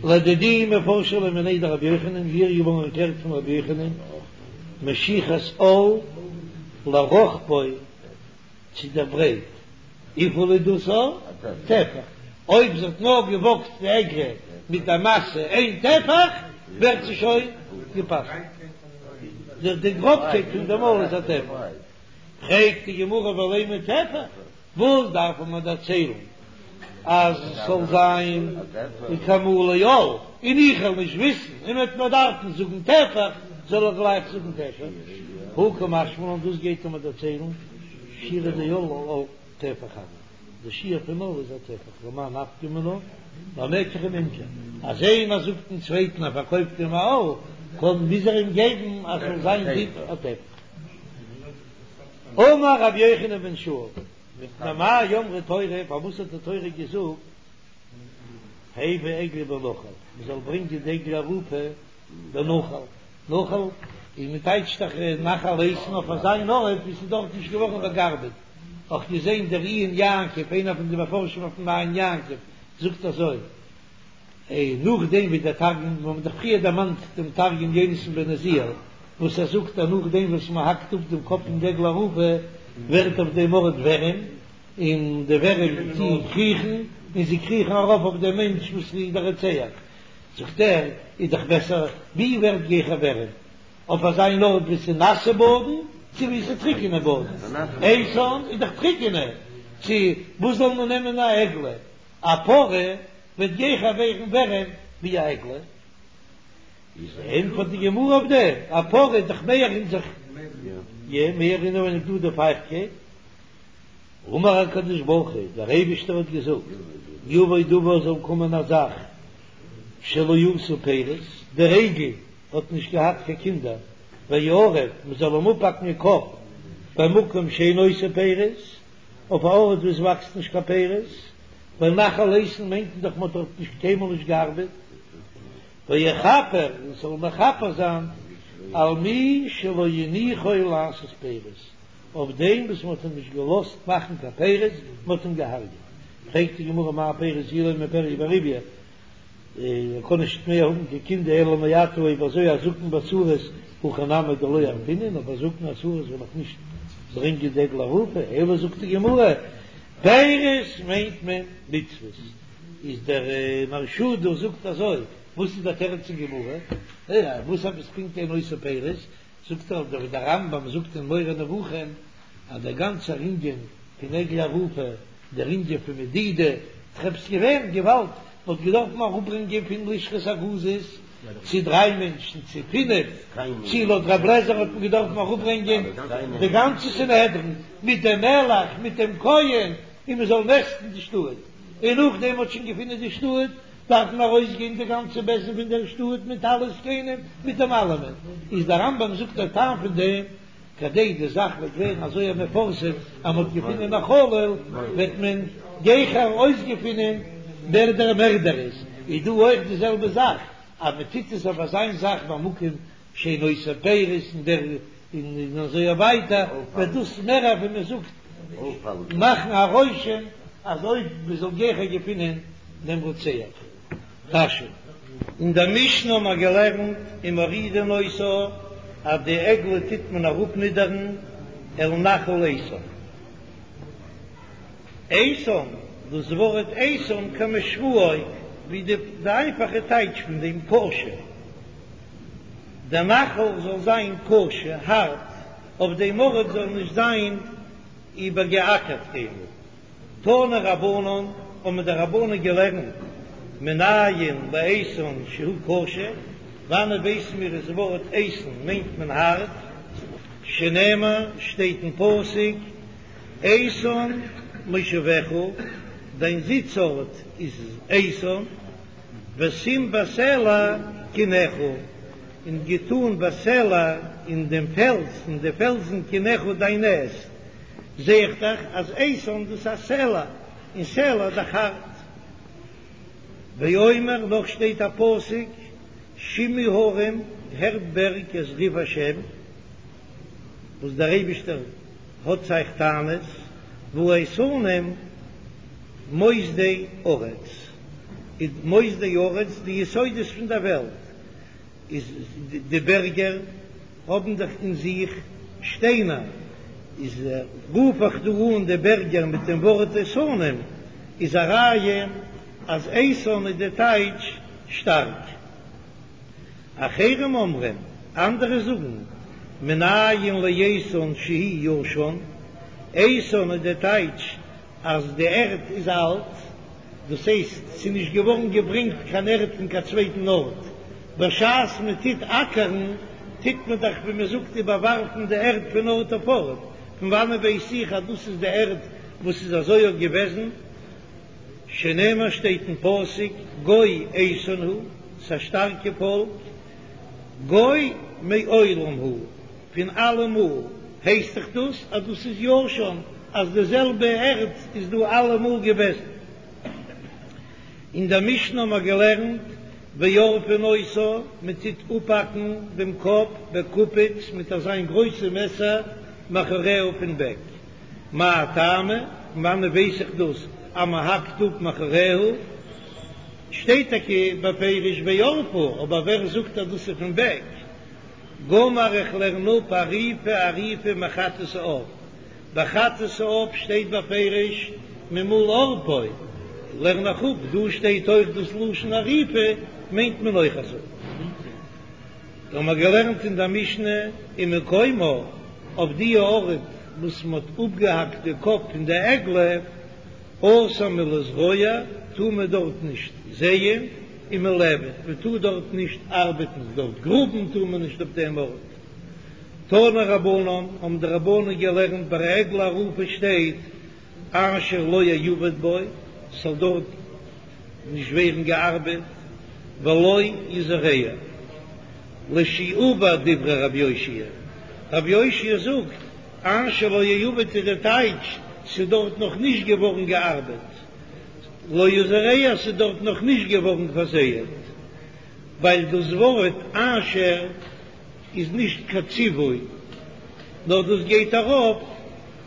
A: לדידי מפרשא לי מיניה דרבי יוחנן, מיר איז געווארן ערקלערט פון רבי יוחנן, משיכת עול לרוחבו. צו דער ברייט, וויפיל איז דאס א טפח? אויב זי האט נאר געוואגט די עגלה מיט א משא איין טפח, ווערט זי שוין גע'פסל'ט. די גראבקייט פון דעם עול איז א טפח. פרעגט די גמרא ולימא טפח, וואס דארף מען דערציילן אז עס זאל זיין כמלא עול, און איך וועל נישט וויסן, און מ'וועט מיר דארפן זאגן טפח, זאל איך גלייך זאגן טפח? הא קא משמע לן, דאס גייט ער מיר דערציילן, שיעורא דעול טפח הוי, די שיעור פון עול איז א טפח, למאי נפקא מינה, למקח וממכר, אז איינער זאגט דעם צווייטן ער פארקויפט אים א עול, קען מוז ער אים געבן אז ס'זאל זיין דיק א טפח. אמר רבי יוחנן בן שאול, מפני מה אמרה תורה, פארוואס האט די תורה געזאגט הבא עגלה בנחל, מען זאל ברענגען די עגלה ערופה בנחל, נחל און מען טייטשט דאך נחל איתן אויף אזא אן ארט ווי ס'איז דארט נישט געווארן באגארבעט, אויך געזען דער עיון יעקב, איינער פון די מפרשים אויפן עיון יעקב זאגט אזוי. און נאכדעם ווי דער תרגום, מיר האבן דאך פריער דערמאנט דעם תרגום יונתן בן עוזיאל, וואס ער זאגט אז נאכדעם וואס מען האקט אפ דעם קאפ פון די עגלה ערופה, ווערט אויף דעם ארט ווערים, און די ווערים טוען קריכן, און זיי קריכן ארויף אויף דעם מענטש וואס איז דער רוצח. זאגט ער, איז דאך בעסער, ווי ווערט גיכער ווערים, אויף אזא אן ארט וואו ס'איז נאסע באדן, צו וואו ס'איז טריקענע באדן? איתן איז דאך טריקענע, צו וואס זאל מען נעמען א עגלה? א פרה וועט גיכער ווערן ווערעם ווי א עגלה, איז ענטפערט די גמרא אויף דעם, א פרה איז דאך מער אין זיך, יא מער אינעווייניג דא די פייכטקייט, אמר הקדוש ברוך הוא, דער אייבישטער האט געזאגט, יבוא דבר זאל קומען א זאך שלא עשה פירות, דער עגל האט נישט געהאט קיין קינדער, ויערף, מען זאל אים אפהאקן די קאפ, במקום שאינו עושה פירות, אויף א ארט וואו עס וואקסט נישט קיין פירות, ווייל נחל איתן מיינט מען דאך מען האט דארט נישט קיינמאל נישט געארבעט, ויכפר און ס'זאל מכפר זיין על מי שלא הניחו לעשות פירות, אויף דעם וואס מען האט אים נישט געלאזט מאכן קיין פירות, מען האט אים געהארגעט. פרעגט די גמרא מאי פירות אילימא פריה ורביה. ער קען נישט מער האבן קיין קינדער אלא מעתה אויב אזוי אזקן וסריס הכי נמי דלא ערפינן, אבער זקן וסריס וועל איך נישט ברענגען די עגלה ערופה, אלא זאגט די גמרא פירות מיינט מען מצוות, איז דער מהרש"א דא זאגט אזוי, וואס איז דער תירוץ אין גמרא? וואס עפעס פונקט אין עושה פירות? זאגט ער ווי דער רמב"ם זאגט אין מורה נבוכים אז דער גאנצער ענין פון עגלה ערופה, דער ענין פון מדידה, ס'איז געווען געוואלד, מ'האט געדארפן אראפברענגען פון לשכת הגזית צו דריי מענטשן צו פינף, צו לויט רב לעזער האט מען געדארפן אראפברענגען די גאנצע סנהדרין מיט דעם מלך מיט דעם כהן און מ'זאל מעסטן די שטאט, און נאכדעם מ'האט שוין געפונען די שטאט דארף מען ארויסגיין די גאנצע בית דין פון דער שטאט מיט אלע זקנים מיט דעם אלעמען, איז דער רמב"ם זאגט דער טעם פון דעם, כדי די זאך וועט ווערן אזוי א מפורסם אז מ'האט געפונען א חלל, וועט מען גיכער אויסגעפינען ווער דער מערדער איז, איז דא אויך די זעלבע זאך, אז מען טוט עס אויף אזיין זאך במקום שאין עושה פירות און דער און אזוי ווייטער, וועט דאס מער ווי מען זאגט מאכן א רושם אז אויב מען זאל גיכער געפינען דעם רוצח. רש"י. אין דער משנה האבן מיר געלערנט ומורידין אותה אז די עגלה טוט מען אראפנידערן אל נחל איתן. איתן, דאס ווארט איתן כמשמעו ווי די איינפאכע טייטש פון דעם קשה. דער נחל זאל זיין קשה, הארט, אויף דעם ארט זאל נישט זיין איבערגעאקערט קיינמאל. תנו רבנן, האבן די רבנן געלערנט, מנין לאיתן שהוא קשה, וואנעט ווייסן מיר אז ווארט איתן מיינט מען הארט, שנאמר שטייט אין פסוק, איתן מושבך, דיין זיץ ארט איז איתן, ושים בסלע קנך, און געטאן בסלע אין דעם פעלז, אין די פעלזן קנך דיין נעסט, זע איך דאך אז איתן דאס איז א סלע, און סלע איז דאך הארט. ואומר, נאך שטייט א פסוק, שמעו הרים, הערט בערג את ריב השם, וואס דער אייבישטער האט צו אייך טענות, והאיתנים מוסדי ארץ, איז מוסדי ארץ די יסודות פון דער וועלט, איז די בערגער האבן דאך אין זיך שטיינער, איז רוף איך דא אן די בערגער מיט דעם ווארט איתנים, איז א ראיה אז איתן איז די טייטש שטארק. אחרים אומרים, אנדערע זאגן, מנין לאיתן שהוא ישן, איתן איז די טייטש אז די ערד איז אלט, דאס הייסט ס'איז נישט געווארן געברענגט קיין ערד פון קיין צווייטן ארט, בשעת מען טוט אקערן טוט מען דאך ווי מען זאגט איבערווארפן די ערד פון ארט אויף ארט, פון וואנען ווייס איך אז דאס איז די ערד וואס איז אזוי אויך געוועזן? שנאמר שטייט אין פסוק גוי איתן הוא, ס'א שטארקע פאלק, גוי מעולם הוא, פון אלעמאל, הייסט דאך דאס אז דאס איז ישן, אז די זעלבע ערד איז דא אלעמאל געוועזן. אין דער משנה האבן מיר געלערנט ועורפין אותה, מען טוט אפהאקן דעם קאפ בקופיץ מיט אזיין גרויסע מעסער מאחוריה פון בעק. מאי טעמא, פון וואנעט ווייס איך דאס אז מען האקט אפ מאחוריה? שטייט טאקע בפירוש וערפה, אבער ווער זאגט אז דאס איז פון בעק? גמר איך לערן אפ עריפה עריפה מחטאת העוף, ביי חטאת העוף שטייט בפירוש ממול עורפו, לערן איך אפ, דא שטייט אויך דאס לשון עריפה, מיינט מען אויך אזוי. דא האבן מיר געלערנט אין דער משנה ומקומה, אויף די ארט וואס מען האט אפגעהאקט די קאפ פון די עגלה, אסור מלזרוע, טאר מען דארט נישט זייען, ומלעבד, מען טאר דארט נישט ארבעטן, דארט גראבן טאר מען נישט אויף דעם ארט. תנו רבנן, האבן די רבנן געלערנט ביי עגלה ערופה שטייט אשר לא יעבד בו, ס'זאל דארט נישט ווערן געארבעט, ולא יזרע, לשעבר דברי רבי יאשיה, רבי יאשיה זאגט אשר לא יעבד איז די טייטש ס'איז דארט נאך נישט געווארן געארבעט, לא יזרע ס'איז דארט נאך נישט געווארן פארזייעט, ווייל דאס ווארט אשר איז נישט קיין ציווי, נאר דאס גייט ארויף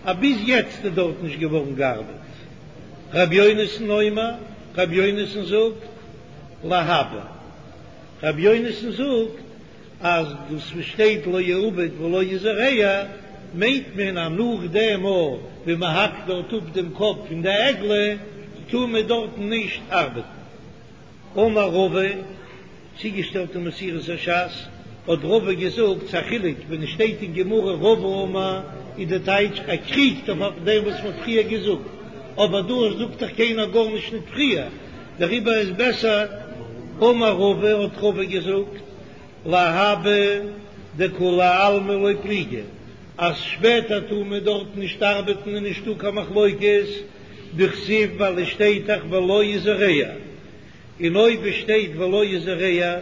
A: אז ביז יעצט איז דארט נישט געווארן געארבעט. ר' יונתן אומר, ר' יונתן זאגט, להבא. רבי יונתן זאגט אז דאס וואס שטייט לא יעובד ולא יזרע מיינט מען אז נאך דעם מאל ווי מען האקט דארט אפ דעם קאפ פון די עגלה טאר מען דארטן נישט ארבעטן. אמר רבא, צוגעשטעלט אין מסורת הש"ס, האט רבא געזאגט, ס'א חילוק ווען עס שטייט אין גמרא רבא אמר איז די טייטש ער קריגט אויף דעם וואס מ'האט פריער געזאגט, אבער דא זאגט דאך קיינער גארנישט ניט פריער, דעריבער איז בעסער אמר רבא האט רבא געזאגט, להבא דכולי עלמא לא פליגי, אז שפעטער טאר מען דארט נישט ארבעטן איז נישטא קיין מחלוקת, דכתיב ווייל עס שטייט דאך ולא יזרע, און אויב עס שטייט ולא יזרע,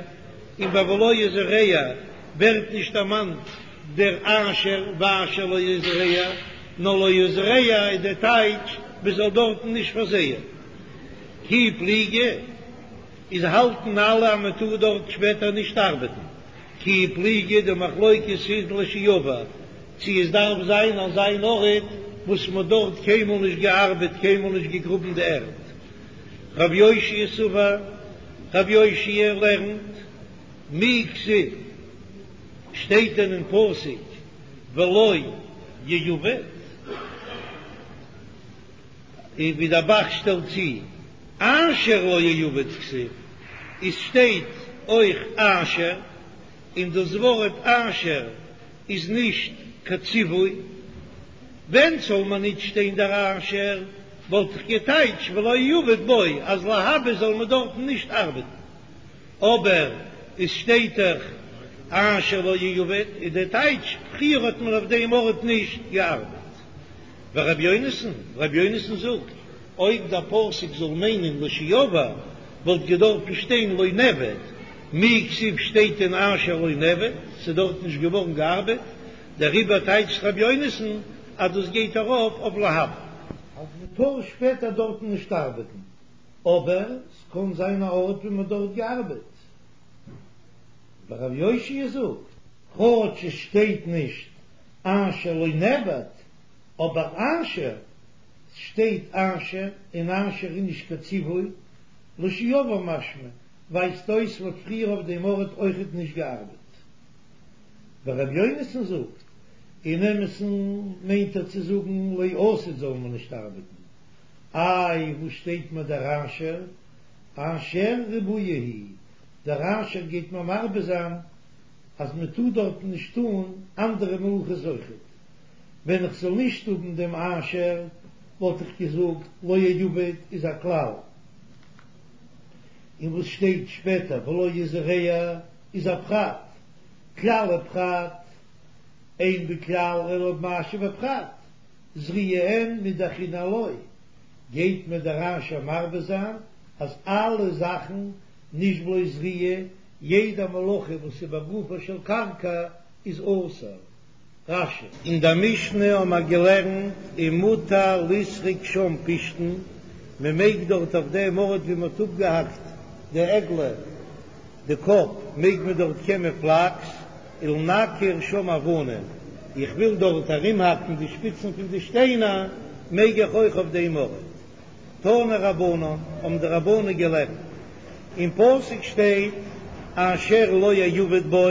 A: און ביי ולא יזרע ווערט נישט דערמאנט דער אשר ואשר לא יזרע, נאר לא יזרע איז דער טייטש מען זאל דארטן נישט פארזייען. כי פליגי איז האלטן אלע אז מען טאר דארט שפעטער נישט ארבעטן, כי פליגי די מחלוקת איז לשעבר צו עס דארף זיין אזא אן ארט וואס מען האט דארט קיינמאל נישט געארבעט קיינמאל נישט געגראבן די ערד. רב יאשיה סבר, רב יאשיה לערנט, מי כתיב, שטייט דען אין פסוק ולא יעובד? און ווי דער ב"ח שטעלט צו, אשר לא יעובד כתיב, עס שטייט אויך אשר, און דאס ווארט אשר איז נישט קיין ציווי, ווען זאל מען ניט שטיין דער אשר, וואלט איך געטייטש ולא יעובד בו אז להבא זאל מען דארטן נישט ארבעטן, אבער עס שטייט דאך אשר לא יעובד איז דער טייטש פריער האט מען אויף דעם ארט נישט געארבעט. ורבי יונתן, רבי יונתן זאגט, אויב דער פסוק זאל מיינען לשעבר וואלט געדארפן שטיין לא נעבד, מי כתיב שטייט דען אשר לא נעבד, ס'איז דארט נישט געווארן געארבעט, דעריבער טייטשט רבי יונתן אז דאס גייט ארויף אויף להבא. אז מ'טאר שפעטער דארטן נישט ארבעטן, אבער ס'קען זיין א ארט ווי מ'האט דארט געארבעט. ורבי יאשיה זאגט, כאטש עס שטייט נישט אשר לא נעבד, אבער אשר שטייט אשר, און אשר איז נישט קיין ציווי, לשעבר משמע, ווייזט אויס מ'האט פריער אויף דעם ארט אויכעט נישט געארבעט. ורבי יונתן זאגט, אין אמת'ן מיינט ער צו זאגן לעתיד זאל מען נישט ארבעטן. איי וואס שטייט מיר דער אשר? אשר ריבויא הוא, דער אשר גייט מיר מרבה זיין אז מען טאר דארטן נישט טאן אנדערע מלאכות אויכעט. ווען איך זאל נישט האבן דעם אשר וואלט איך געזאגט לא יעובד איז א כלל, און וואס שטייט שפעטער ולא יזרע איז א פרט, כלל ופרט, אין בכלל אלא במה שבפרט, זריעה אין מידי אחרינא לא, גייט מיר דער אשר מרבה זיין אז אלע זאכן נישט בלויז זריעה, יעדע מלאכה וואס איז בגופה של קרקע איז אסור. רש"י. אין דער משנה האבן מיר געלערנט ומותר לסרוק שם פשתן, מען מעג דארט אויף דעם ארט ווי מען האט אפגעהאקט די עגלה די קאפ מעג מען דארט קעמען פלאקס, ולנקר שם אבנים, איך וויל דארט ארומהאקן די שפיצן פון די שטיינער, מעג איך אויך אויף דעם ארט. תנו רבנן, האבן די רבנן געלערנט, אין פסוק שטייט אשר לא יעבד בו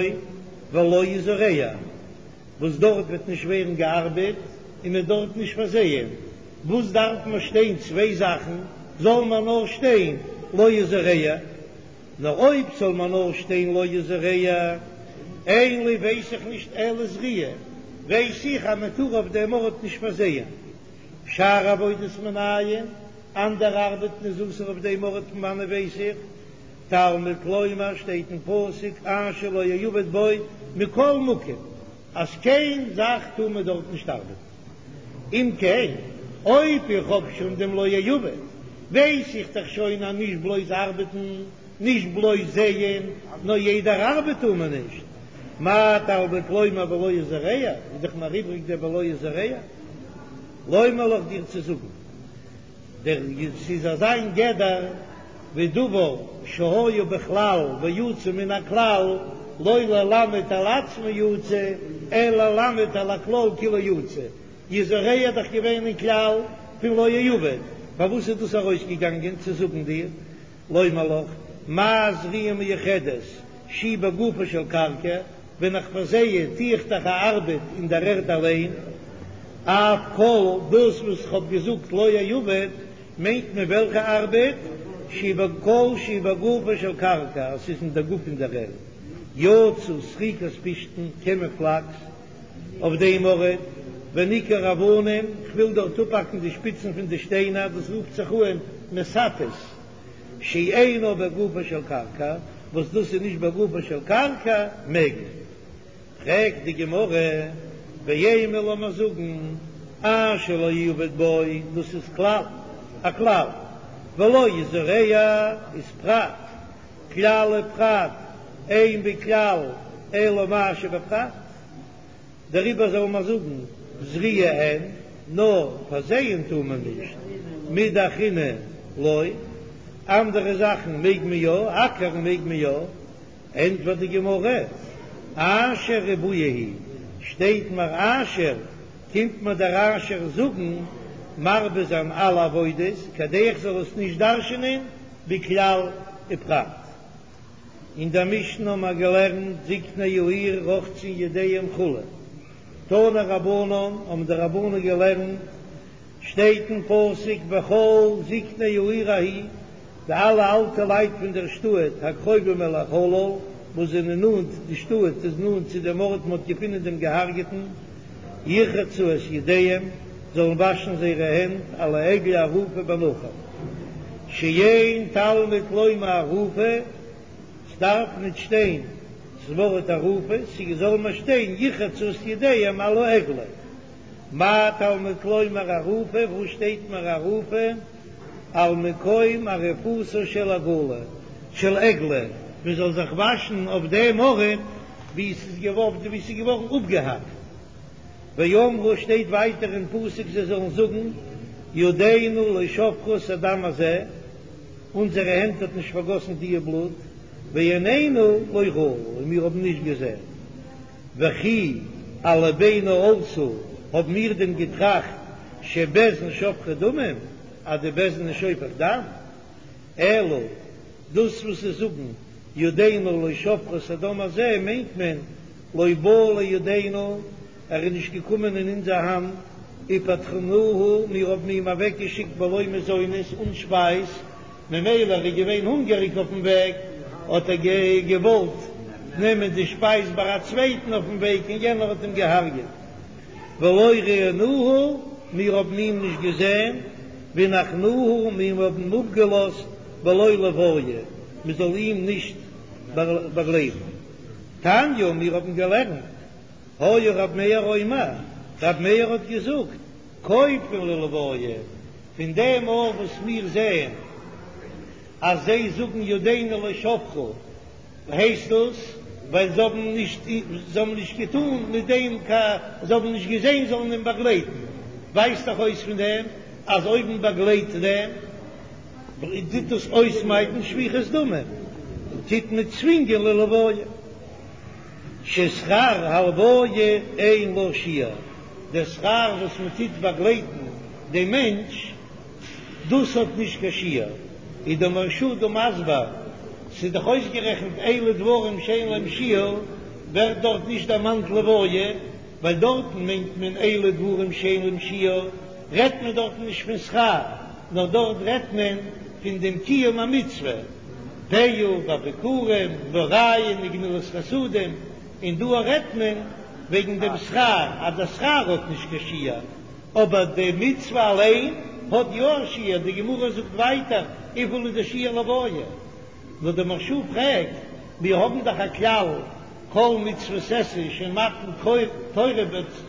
A: ולא יזרע, וואס דארט וועט נישט ווערן געארבעט און מען דארט נישט פארזייען, וואס דארף מען שטיין צוויי זאכן, זאל מען נאר שטיין לא יזרע, נאר אויב זאל מען נאר שטיין לא יזרע, אין לי ווייס איך נישט אלא זריעה, ווייס איך אז מען טאר אויף דעם ארט נישט פארזייען. שאר עבודות מנין, אנדערע ארבעטן איז אסור אויף דעם ארט פון וואנען ווייס איך? תלמוד לומר שטייט אין פסוק אשר לא יעבד בו מכל מקום אז קיין זאך טאר מען דארט נישט ארבעטן. אם כן אויב איך האב שוין דעם לא יעבד ווייס איך דאך שוין אז נישט בלויז ארבעטן, נישט בלויז זייען, נאר יעדער ארבעט טאר מען נישט. מה תלמוד לומר ולא יזרע, איז דאך מיר איבריג דער ולא יזרע. לומר לך דיר צו זאגן, דער ס'איז אזא מין גדר ווי דבר שהיה בכלל ויצא מן הכלל, לא ללמד על עצמו יצא, אלא ללמד על הכלל כולו יצא, יזרע איז דאך געווען אין כלל פון לא יעבד, פארוואס איז דאס ארויסגעגאנגען צו זאגן דיר לומר לך? מה זריעה מיוחדת שהיא בגופה של קרקע, ווען איך פארזיי טו איך דאך א ארבעט אין דער ערד אליין, אף כל דאס וואס איך האב געזאגט לא יעבד, מיינט מען וועלכע ארבעט, שהיא כל שהיא בגופה של קרקע, אז ס'איז אין דער גוף פון דער ערד, יצא סריקת פשתן, קען מען פלאקס אויף דעם ארט, וניקור אבנים, כ'וויל דארט אפהאקן די שפיצן פון די שטיינער, דאס רופט זיך אן מסתת. שאינו בגופה של קרקע, וואס דאס איז נישט בגופה של קרקע, מעג מען. פרעגט די גמרא, ואימא לאמיר זאגן, אשר לא יעבד בו, דאס איז כלל, א כלל, ולא יזרע איז פרט, כלל ופרט, אין בכלל אלא מה שבפרט. דעריבער זאל מען זאגן זריעה אין, נאר פארזייען טאר מען נישט, מידי אחרינא לא, אנדערע זאכן מעג מען יא, אקערן מעג מען יא, ענטפערט די גמרא, אשר ריבויא הוא, שטייט מיר אשר, קומט מיר דער אשר זאגן מרבה זיין אלע עבודות, כדי איך זאל עס נישט דרש'ענען בכלל ופרט. אין דער משנה האבן מיר געלערנט זקני העיר רוחצין ידיהם כו', תנו רבנן, האבן די רבנן געלערנט, שטייט אין פסוק וכל זקני העיר ההיא, די אלע אלטע לייט פון דער שטאט הקרובים אל החלל, וואס זענען נאנט, די שטאט איז נאנט צו דעם ארט מען האט געפונען דעם געהארגעטן, ירחצו את ידיהם, זאלן וואשן זייערע הענט על העגלה הערופה בנחל, שאין תלמוד לומר הערופה, ס'דארף ניט שטיין ס'ווארט הערופה, ס'זאל נאר שטיין ירחצו את ידיהם על העגלה. מה תלמוד לומר הערופה, וואו שטייט מיר הערופה? על מקום עריפתה של עגלה, של עגלה, מען זאל זיך וואשן אויף דעם ארט וואו ס'איז געווארן אפגעהאקט. ואמרו שטייט ווייטער אין פסוק זיי זאלן זאגן ידינו לא שפכו את הדם הזה, אונזערע הענט האט נישט פארגאסן דיע בלוט, ועינינו לא ראו, און מיר האבן נישט געזען. וכי על לבנו עלתה, האבן מיר דען געטראכט שבית דין שופכי דמים, אז די בית דין איז שופך דם? אלא דאס וואס זיי זאגן ידינו לא שפכו את הדם הזה מיינט מען לא בא לידינו, ער איז נישט געקומען אין אונזער האנט, ופטרנוהו, מיר האבן אים אוועקגעשיקט בלא מזונות, אן שפייז, ממילא ער איז געווען הונגעריג אויפן וועג, האט ער געוואלט נעמען די שפייז ביי א צווייטן אויפן וועג און יענער האט אים געהארגעט. ולא ראינוהו, מיר האבן אים נישט געזען, והנחנוהו, מיר האבן אים אפגעלאזט בלא לוויה, מען זאל אים נישט באגלייבן. תניא, מיר האבן געלערנט, היה רב מאיר אומר, רב מאיר האט געזאגט, כופין ללוויה, פון דעם אויך וואס מיר זעען אז זיי זאגן ידינו לא שפכו, הייסט דאס ווייל זיי האבן נישט זיי האבן נישט געטאן מיט דעם קיין זיי האבן נישט געזען זאלן אים באגלייטן, ווייזט דאך אויס פון דעם אז אויב מען באגלייט דעם טוט דאס אויסמיידן שפיכות דמים, טוט מען צווינגען ללוויה. ששכר הלוויה אין לה שיעור, דער שכר וואס מען טוט באגלייטן דעם מענטש, דאס האט נישט קיין שיעור, איז דער מהרש"א דא מסביר, ס'איז דאך אויסגערעכנט אלו דברים שאין להם שיעור, ווערט דארט נישט דערמאנט לוויה, ווייל דארטן מיינט מען אלו דברים שאין להם שיעור, רעדט מען דארטן נישט פון שכר, נאר דארט רעדט מען פון דעם קיום המצוה, פאה וביכורים והראיה וגמילות חסדים, און דא רעדט מען וועגן דעם שכר, אז דער שכר האט נישט קיין שיעור. אבער די מצוה אליין האט יא א שיעור, די גמרא זאגט ווייטער וויפיל איז די שיעור לוויה, נאר די מהרש"א פרעגט, מיר האבן דאך א כלל כל מצוות עשה שמתן תורה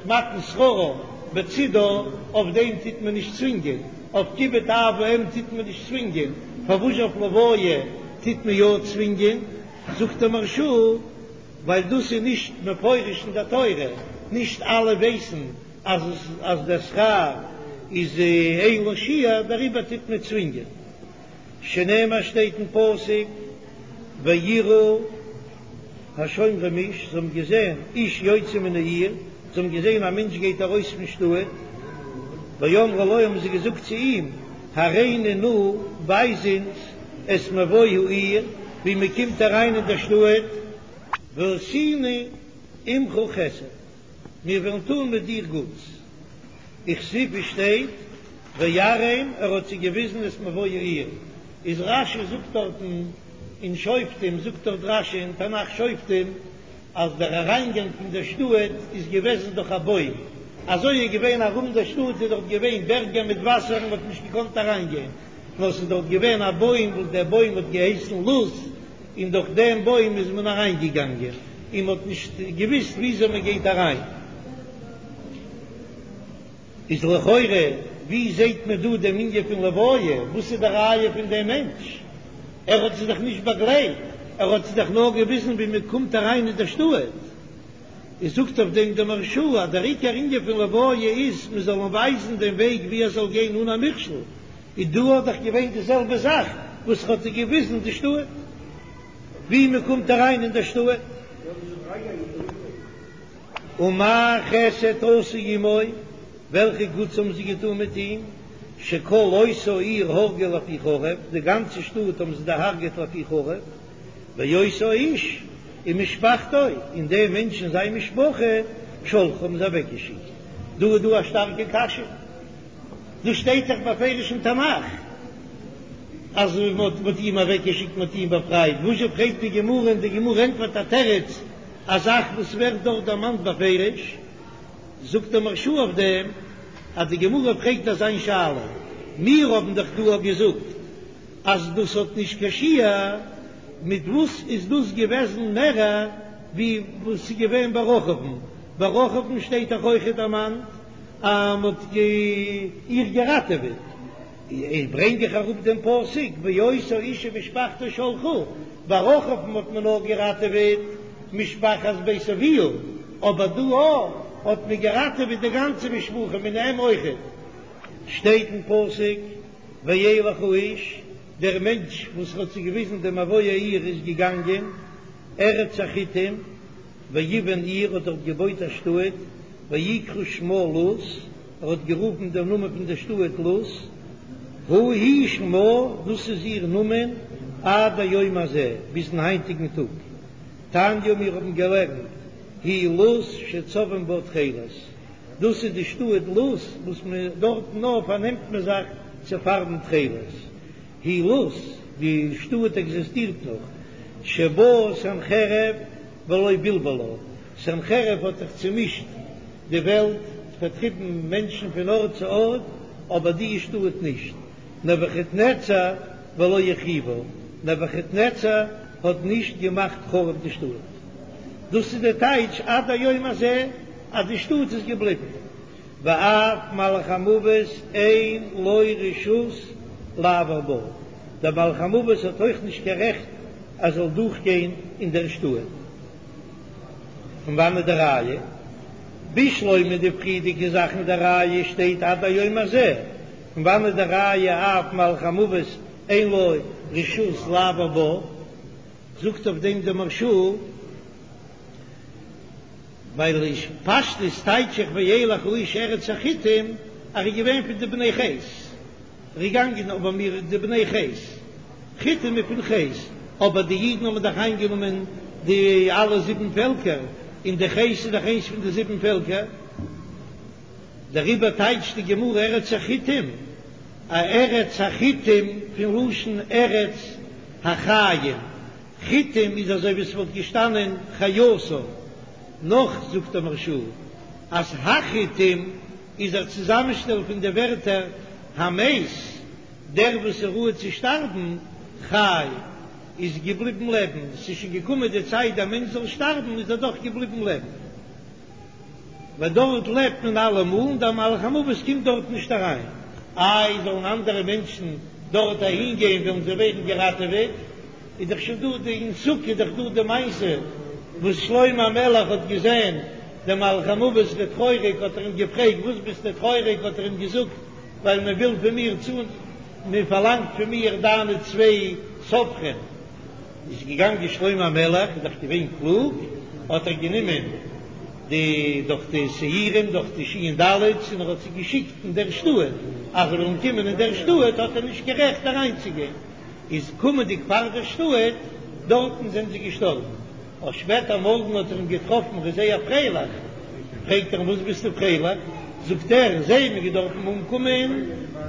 A: מתן שכרה בצידה, אויף דעם טוט מען נישט צווינגען, אויף כיבוד אב ואם טוט מען נישט צווינגען, פארוואס אויף לוויה טוט מען יא צווינגען? זאגט די מהרש"א, ווייל דאס איז נישט מפורש אין די תורה, נישט אלע ווייסן אז אז דער שכר איז אין לו שיעור, דעריבער טוט מען צווינגען. שנאמר שטייט אין פסוק ויראו השומרים איש, זיי האבן געזען איש יוצא מן העיר, זיי האבן געזען א מענטש גייט ארויס פון שטאט, ויאמרו לו האבן זיי געזאגט צו אים, הראנו נא, ווייז אונז את מבוא העיר. ווי מען קומט אריין אין דער שטאט, ועשינו עמך חסד, מיר וועלן טון מיט דיר גוטס, וכתיב שטייט ויראם ער האט זיי געוויזן את מבוא העיר, איז רש"י זאגט דארטן אין שופטים זאגט דארט רש"י אין תנ"ך שופטים אז דער אריינגאנג פון דער שטאט איז געוועזן דורך א בוים, אזוי איז געווען ארום דער שטאט איז דארט געווען בערגער מיט וואסער און מען האט נישט געקאנט אריינגיין, נאר ס'איז דארט געווען א בוים וואס דער בוים האט געהייסן לוז, און דורך דעם בוים איז מען אריינגעגאנגען, און מען האט נישט געוויסט וויאזוי מען גייט אריין. איז לכאורה ווי זעהט מען דא דעם ענין פון לוויה? וואס איז די ראיה פון דעם מענטש? ער האט זיי דאך נישט באגלייט, ער האט זיי דאך נאר געוויזן ווי מען קומט אריין אין דער שטאט. איז זאגט אויף דעם דער מהרש"א אז דער עיקר ענין פון לוויה איז מען זאל אים ווייזן דעם וועג ווי ער זאל גיין אן א מכשול, איז דא האט דאך געווען די זעלבע זאך וואס ער האט זיי געוויזן די שטאט ווי מען קומט אריין אין דער שטאט. ומה חסד עשו עמו, וועלכע גוטס האבן זיי געטאן מיט אים, שכל אותה העיר הרגו לפי חרב, די גאנצע שטאט האבן זיי דערהרגעט לפי חרב, ואותו האיש ומשפחתו, און דעם מענטש און זיין משפחה, שלחו האבן זיי אוועקגעשיקט. דא איז דא א שטארקע קשיא, דא שטייט דאך בפירוש אין תנך אז מען האט אים אוועקגעשיקט, מען האט אים באפרייט, וואזשע פרעגט די גמרא און די גמרא ענטפערט א תירוץ, א זאך וואס ווערט דארט דערמאנט בפירוש, זאגט דער מהרש"א אויף דעם אז די גמרא פרעגט אזא שאלה, מיר האבן דאך דא געזאגט אז דאס האט נישט קיין שיעור, מיט וואס איז דאס געוועזן מערער ווי וואס איז געווען ביי רחב'ן? ביי רחב'ן שטייט דאך אויכעט דערמאנט אז מען האט איר געראטעוועט, איז ברענג איך אראפ דעם פסוק ואותו האיש ומשפחתו שלחו, ביי רחב'ן האט מען נאר געראטעוועט משפחת בית אביה, אבער דא האט מען געראטעוועט די גאנצע משפחה מיט אים אויכעט. שטייט אין פסוק וילך האיש, דער מענטש וואס האט זיי געוויזן דעם מבוא העיר איז געגאנגען ארץ החתים, ויבן עיר האט דארט געבויט א שטאט, ויקרא שמה לוז, ער האט גערופן דעם נאמען פון דער שטאט לוז, הוא היא שמה, דאס איז איר נאמען עד היום הזה, ביזן היינטיגן טאג. תניא, מיר האבן געלערנט, היא לוז שצובעים בה תכלת, דאס איז די שטאט לוז וואס מען דארטן נאר פארנעמט מען זיך צו פארבן תכלת. היא לוז, די שטאט עקזיסטירט נאך, שבא סנחריב ולא בלבלה, סנחריב האט זיך צומישט די וועלט, פארטריבן מענטשן פון ארט צו ארט, אבער די שטאט נישט. נבוכדנצר ולא החריבה, נבוכדנצר האט נישט געמאכט חרוב די שטאט. דאס איז די טייטש עד היום הזה אז די שטאט איז געבליבן. ואף מלאך המוות אין לו רשות לעבור בה, דער מלאך המוות האט אויך נישט קיין רעכט ער זאל דורכגיין אין דער שטאט. פון וואנעט די ראיה? בשלמא די פריערדיגע זאכן די ראיה שטייט עד היום הזה, פון וואנעט די ראיה אף מלאך המוות אין לו רשות לעבור בה? זאגט אויף דעם דער מהרש"א, ווייל אין פשטות טייטש איך וילך האיש ארץ החתים אז ער איז געווען פון די בני חת. ער איז געגאנגען אבער מיר די בני חת, חתים איז פון חת, אבער די אידן האבן דאך איינגענומען די אלע זיבן פעלקער, און די חת איז דאך איינס פון די זיבן פעלקער, דעריבער טייטשט די גמרא ארץ החתים, א ארץ החתים פון לשון ארץ החיים, חתים איז אזוי ווי ס'וואלט געשטאנען חיותו, נאך זאגט דער מהרש"א אז החתים איז א צוזאמשטעל פון די ווערטער המת, דער וואס איז ראוי צו שטארבן, חי, איז געבליבן לעבן, ס'איז שוין געקומען די צייט דער מענטש זאל שטארבן, איז ער דאך געבליבן לעבן. ווייל דארט לעבט מען אלעמאל און דער מלאך המוות קומט דארט נישט אריין. איי, זאלן אנדערע מענטשן דארט אהין גיין וועלן זיי ווערן געראטעוועט? איז דאך שוין דא די אין סוכה איז דאך דא די מעשה וואס שלמה המלך האט געזען דעם מלאך המוות ווערט טרויעריג האט ער אים געפרעגט וואס ביסטו טרויעריג האט ער אים געזאגט ווייל מען וויל פון מיר צו מען פארלאנגט פון מיר דיינע צוויי סופרים איז געגאנגען שלמה המלך איז דאך געווען קלוג האט ער גענומען די דורך די שעירים דורך די שין דלת'ס און ער האט זיי געשיקט אין דער שטאט אז זיי וועלן קומען אין דער שטאט האט ער נישט קיין רעכט אריינצוגיין. איז קומענדיג פאר דער שטאט. דארטן זענען זיי געשטארבן. אויף שפעטער מארגן האט ער אים געטראפן, ער איז זייער פרייליך, פרעגט ער אים וואס ביסטו פרייליך? זאגט ער, זיי האבן געדארפן אומקומען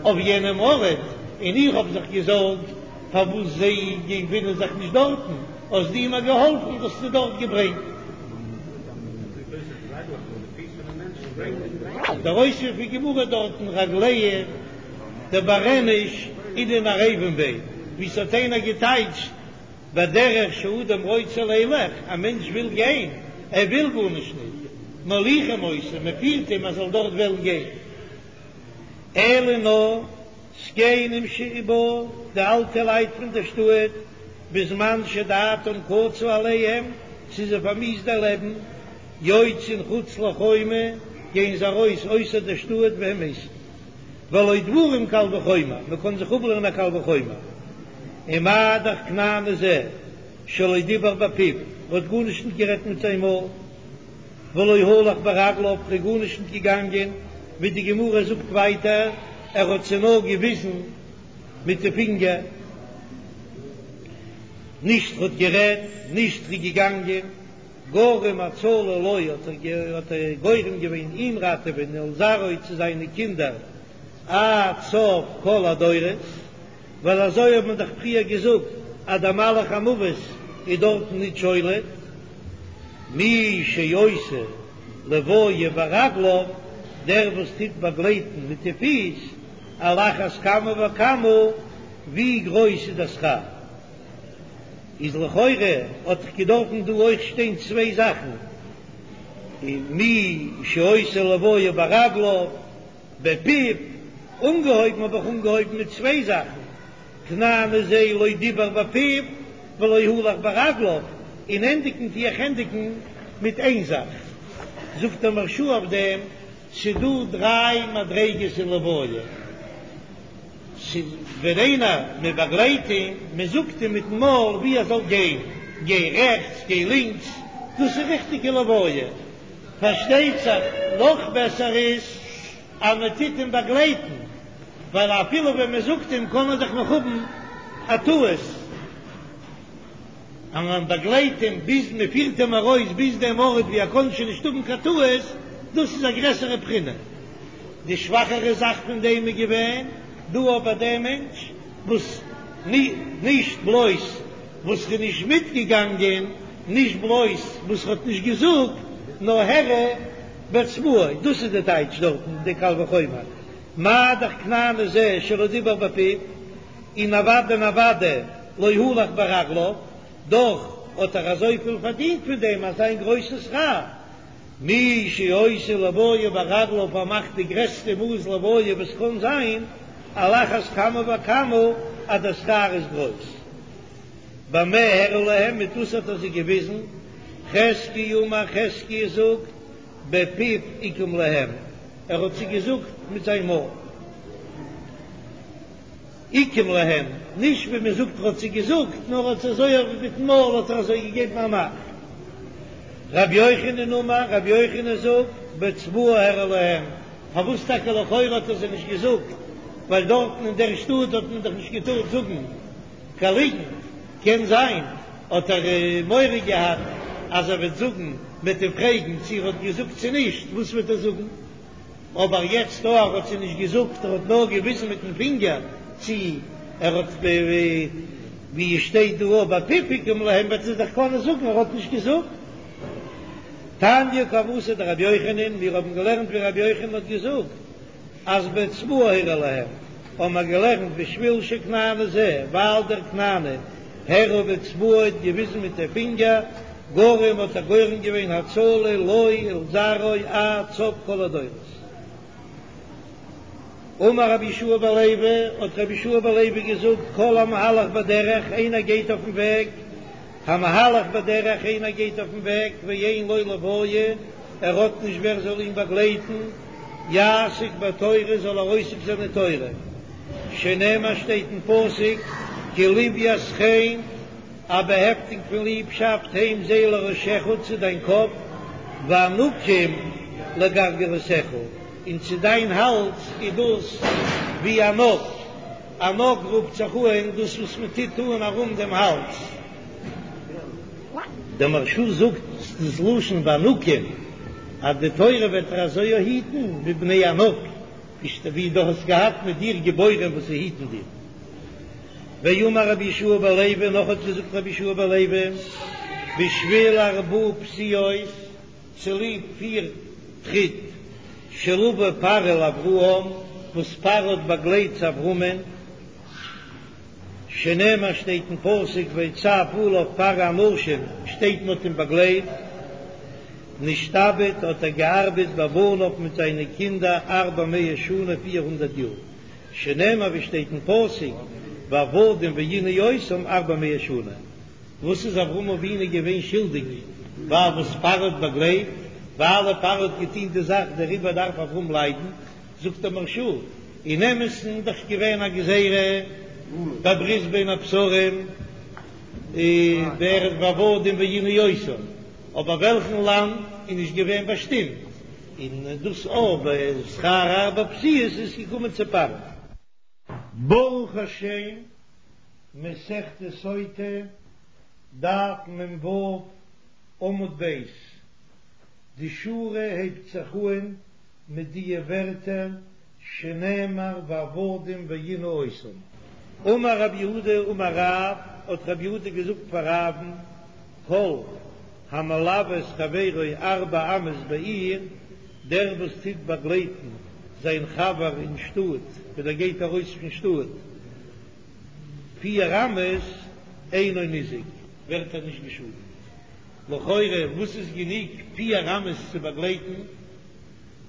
A: אויף יענעם ארט, און איך האב זיך געזארגט פארוואס זיי געפינען זיך נישט דארטן, האסט דו מיר געהאלפן, האסט זיי דארט געברענגט. דער אויספיר פון גמרא דארטן רגליהון דבר איניש אינון ערבין ביה, ווי ס'האט איינער געטייטשט בדרך שאדם רוצה לילך, א מענטש וויל גיין, ער וויל גארנישט נישט, מוליכים אותו, מען פירט אים ער זאל דארט וועלן גיין. אלא נאר זקנים שבה, די אלטע לייט פון דער שטאט, בזמן שדעתם קצה עליהם, ס'איז זיי פארמיאוסט דער לעבן, יוצאין חוץ לחומה, גייען זיי ארויס אויסער דער שטאט והם מתים. והלא דברים קל וחומר, מען קען זיך אפלערנען א קל וחומר. ומה דאך כנעני זה שלא דיבר בפיו, ער האט גארנישט ניט גערעדט מיט זיין מויל, ולא הלך ברגליו, ער איז גארנישט ניט געגאנגען, ווי די גמרא זאגט ווייטער, ער האט זיי נאר געוויזן מיט די פינגער, נישט ער האט גערעדט, נישט ער איז געגאנגען. גרם הצלה לו האט ער גורם געווען אים ראטעווען ולזרעו צו זיינע קינדער עד סוף כל הדורות, ווייל אזוי האט מען דאך פריער געזאגט אז דער מלאך המוות איז דארטן ניט שולט. מי שעושה לוויה ברגליו, דער וואס טוט באגלייטן מיט די פיס, על אחת כמה וכמה, ווי גרויס איז דער שכר. איז לכאורה האט דאך געדארפן דא אויך שטיין צוויי זאכן, מי שעושה לוויה ברגליו, בפיו, אנגעהויבן האב איך אנגעהויבן מיט צוויי זאכן, כנעני זה לא דיבר בפיו ולא הלך ברגליו, און ענדיגן טו איך ענדיגן מיט איין זאך. זאגט דער מהרש"א אויף דעם, ס'דא דריי מדריגות אין לוויה. ס'איז ווען איינער, מען באגלייט אים, מען זאגט אים מיטן מויל ווי ער זאל גיין, גיי רעכטס, גיי לינקס, דאס איז ריכטיגע לוויה. פארשטייט זיך נאך בעסער איז אז מען טוט אים באגלייטן, ווייל אפילו ווען מען זאגט אים קען ער דאך נאך האבן א טעות. אז מען באגלייט אים ביז מען פירט אים ארויס ביז דעם ארט ווי ער קען שוין נישט האבן קיין טעות, דאס איז א גרעסערע בחינה. די שוואכערע זאך פון דעם איז געווען דא אבער דער מענטש וואס נישט בלויז וואס ר'איז נישט מיטגעגאנגען, נישט בלויז וואס ר'האט נישט געזאגט, נאר הראה באצבעו, דאס איז די טייטש דארטן די קל וחומר, מה דאך כנעני זה שלא דיבר בפיו. און אוודאי און אוודאי לא הלך ברגליו, דאך האט ער אזויפיל פארדינט פון דעם אזא גרויסן שכר. מי שעושה לוויה ברגליו ער מאכט די גרעסטע מאס לוויה וואס קען זיין, על אחת כמה וכמה אז דער שכר איז גרויס. במה הראה להם, מיט וואס האט ער זיי געוויזן? חזקיה אמר חזקיה זאגט, בפיו עיקם להם, ער האט זיי געזאגט מיט זיין מויל. עיקם להם, נישט ווי מען זאגט ער האט זיי געזאגט, נאר האט אזוי אויף מיטן מויל האט ער אזוי געגעבן א מאך. רבי יוחנן אמר, רבי יוחנן זאגט, באצבעו הראה להם, פארוואס טאקע לכאורה האט ער זיי נישט געזאגט, ווייל דארטן אין דער שטאט האט מען דאך נישט געטארט זאגן קיין ליגנט, קען זיין האט ער מורא געהאט אז ער וועט זאגן, מען וועט אים פרעגן צו ער האט געזאגט צו נישט, וואס וועט ער זאגן? אבער יעצט דא ער האט זיי נישט געזאגט ער האט נאר געוויזן מיטן פינגער צו ער האט ווי עס שטייט דא אויב בפיו עיקם להם וועט ער דאך קענען זאגן ער האט נישט געזאגט. תניא כוותיה דרבי יוחנן, מיר האבן געלערנט ווי רבי יוחנן האט געזאגט אז באצבעו הראה להם, האבן מיר געלערנט בשביל שכנעני זה, ווייל דער כנעני הראה באצבעו האט געוויזן מיט די פינגער, גרם האט ער גורם געווען הצלה לו ולזרעו עד סוף כל הדורות. אמר רבי יהושע בן לוי, האט רבי יהושע בן לוי געזאגט, כל המהלך בדרך, איינער גייט אויפן וועג, המהלך בדרך, איינער גייט אויפן וועג, ואין לו לוויה, ער האט נישט ווער זאל אים באגלייטן, יעסוק בתורה, זאל ער עוסק זיין אין תורה, שנאמר שטייט אין פסוק, כי לוית חן, א באהעפטונג פון ליבשאפט הם זיי לראשך צו דיין קאפ, וענקים לגרגרותיך, און צו דיין האלז איז דאס ווי אן ענק, ענק רופט זיך אן דאס וואס מען טוט אן ארום דעם האלז. דער מהרש"א זאגט דאס לשון וענקים אז די תורה וועט דיר אזוי היטן ווי בני ענק, ווי דו האסט געהאט מיט דיר גיבורים וואס זיי היטן דיר. ואמר רבי יהושע בן לוי, נאך האט געזאגט רבי יהושע בן לוי, בשביל ארבע פסיעות, צוליב פיר טריט, שלוה פרעה לאברהם, וואס פרעה האט באגלייט צו אברהמען, שנאמר שטייט אין פסוק ויצו עליו פרעה אנשים, שטייט מען האט אים באגלייט, נשתעבד האט ער געארבעט בבניו מיט זיינע קינדער ארבע מאות שנה 400 יאר, שנאמר ווי שטייט אין פסוק ועבדום וענו אותם ארבע מאות שנה. וואס איז אברהם אבינו געווען שולדיג ווייל וואס פרעה האט באגלייט? ווייל פרעה האט געטון די זאך דעריבער דארף אברהם ליידן? זאגט דער מהרש"א, אין אמת'ן איז דאך געווען א גזירה בברית בין הבתרים בארץ ועבדום וענו אותם, אבער וועלכן לאנד איז נישט געווען באשטימט, און דאס אבער שכר ארבע פסיעות איז געקומען צו פרעה. ברוך השם, מסכת סוטה, דף מ"ו, עמוד ב', די שורה הייבט זיך אהן מיט דיע ווערטער שנאמר ועבדום וענו אותם. אמר רב יהודה אמר רב, האט רב יהודה געזאגט פאר רב'ן, כל המלוה את חברו ארבע אמות בעיר, דער וואס טוט באגלייטן זיין חבר אין שטאט ווען ער גייט ארויס פון שטאט פיר אמות, אינו ניזוק, ווערט ער נישט געשאדנט. לכאורה וואס איז גענוג פיר אמות צו באגלייטן?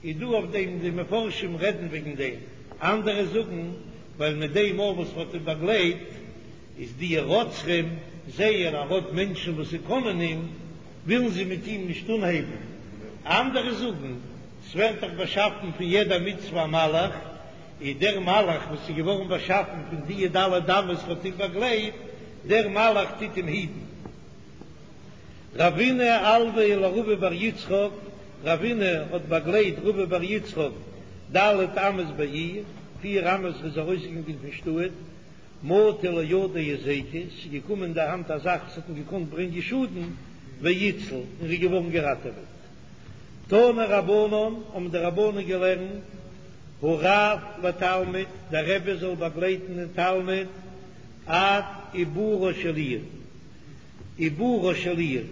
A: איז דא אויף דעם די מפרשים רעדן וועגן דעם, אנדערע זאגן ווייל מיט דעם מאל וואס מ'האט אים באגלייט איז די רוצחים זעען ער האט מענטשן וואס זיי קענען אים, ווילן זיי מיט אים נישט אנהייבן, אנדערע זאגן ס'ווערט דאך באשאפן פון יעדע מצוה א מלאך, איז דער מלאך וואס איז געווארן באשאפן פון די ד' אמות וואס האט אים באגלייט, דער מלאך טוט אים היטן. רבינא אלויה לרבא בר יצחק, רבינא האט באגלייט רבא בר יצחק ד' אמות בעיר, פיר אמות איז ארויסגעגאנגען פון שטאט, מטא לידיה היזיקא, ס'איז געקומען אין די האנט א זאך וואס האט אים געקאנט ברענגען שאדן, ואיתציל, און ר'איז געווארן געראטעוועט. תנו רבנן, האבן די רבנן געלערנט, הרב לתלמיד, דער רבי זאל באגלייטן דעם תלמיד עד עיבורה של עיר. עיבורה של עיר,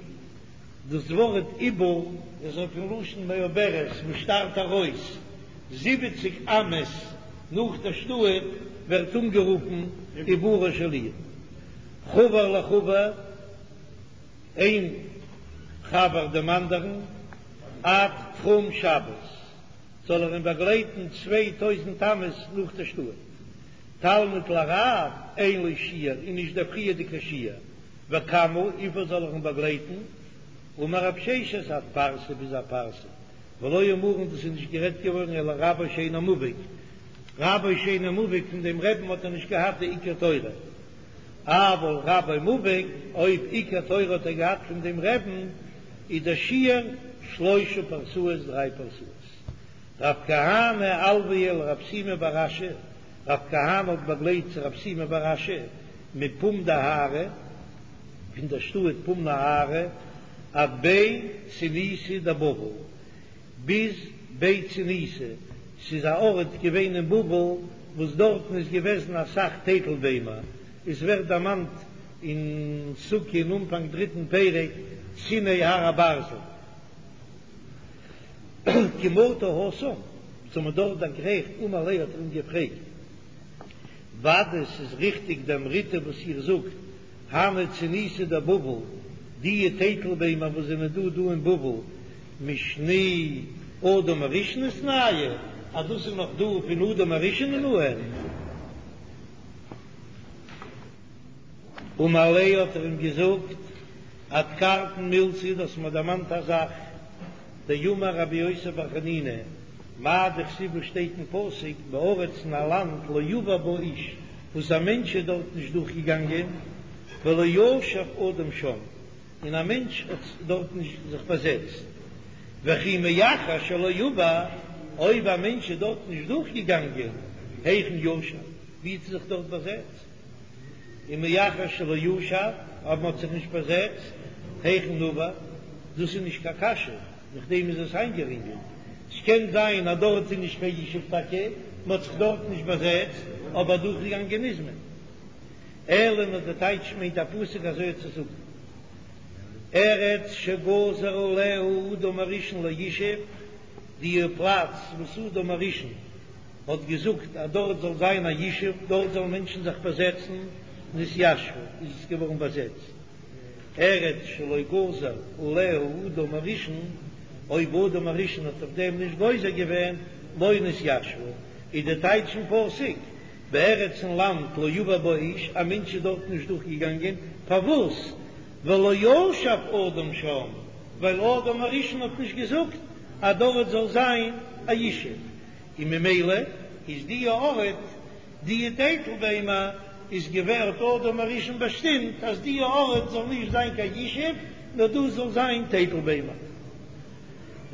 A: דאס ווארט עיבור איז אויפן לשון מעוברת וואס שטארט ארויס, זיבעציג אמות נאך דער שטאט ווערט אנגערופן עיבורה של עיר. חבר לחבר, איין חבר דעם אנדערן, עד תחום שבת, זאל ער אים באגלייטן 2000 אמות נאך דער שטאט. תלמיד לרב אין לו שיעור איז נישט דער פריערדיגער שיעור, וכמה, וויפיל זאל ער אים באגלייטן? אמר רב ששת עד פרסה ביז א פרסה, ולא אמרן דאס איז נישט גערעדט געווארן אלא רבו שאינו מובהק, רבו שאינו מובהק פון דעם רבי'ן האט ער נישט געהאט די עיקר תורה, אבל רבו מובהק, אויב עיקר תורה האט ער געהאט פון דעם רבי'ן, איז דער שיעור שלושה פרסאות דריי פרסאות. רב כהנא אלויה לרב שימי בר אשי, רב כהנא האט באגלייט צו רב שימי בר אשי מפום נהרא, פון דער שטאט פום נהרא, עד בי צוניתא דבבל, ביז בי צוניתא, ס'איז א ארט געווען אין בבל וואס דארטן איז געוועזן אסאך טייטל ביימער, עס ווערט דערמאנט אין סוכה אין אנפאנג דריטן פרק, ציני הר הברזל. כי מטו התם, זיי האבן דארט דערגרייכט, אמר ליה האט ער אים געפרעגט, ודאי ס'איז ריכטיג דאמריתו וואס איר זאגט, הני צוניתי דבבל, דיע טייטל ביימער וואס זענען דא דא אין בבל, משני אדם הראשון איתנהו, אז דאס איז נאך דא פון אדם הראשון אן. אמר ליה האט ער אים געזאגט, אדכרתן מילתא, דו האסט מיר דערמאנט א זאך, דאמר רבי יוסי בר חנינא, מאי דכתיב וואס שטייט אין פסוק, בארץ אין א לאנד לא עבר בה איש, וואס א מענטש איז דארט נישט דורך געגאנגען, ולא ישב אדם שם, און א מענטש האט דארט נישט זיך באזעצט, וכי מאחר שלא עבר, אויב א מענטש איז דארט נישט דורך געגאנגען, היכן ישב, ווי האט ער זיך דארט באזעצט? און מאחר שלא ישב, אויב מ'האט זיך נישט באזעצט, היכן נבר, דאס איז נישט קיין קשיא, נאכדעם איז עס איינגערינגלט, ס'קען זיין אז דארט איז נישט קיין ישוב טאקע, מ'האט זיך דארט נישט באזעצט, אבער דורכגעגאנגען איז מען. אלא נאר די טייטש מיינט א פסוק אזוי צו זאגן, ארץ שגזר עליה אדם הראשון לישב, די פלאץ וואס אדם הראשון האט געזאגט אז דארט זאל זיין א ישוב, דארט זאלן מענטשן זיך באזעצן, נתיישבה, איז עס געווארן באזעצט. ארץ שלא גזר עליה אדם הראשון, אויב אדם הראשון האט אויף דעם נישט גוזר געווען, לא נתיישבה, איז די טייטש אין פסוק, בארץ אין לאנד לא עבר בה איש, א מענטש איז דארט נישט דורך געגאנגען, פארוואס? ולא ישב אדם שם, ווייל אדם הראשון האט נישט געזאגט אז דארט זאל זיין א ישוב, און ממילא איז די ארט, די טייטל ביימער איז געווען האט אדם הראשון באשטימט אז די ארט זאל נישט זיין קיין ישוב נאר דאס זאל זיין טייטל ביימער.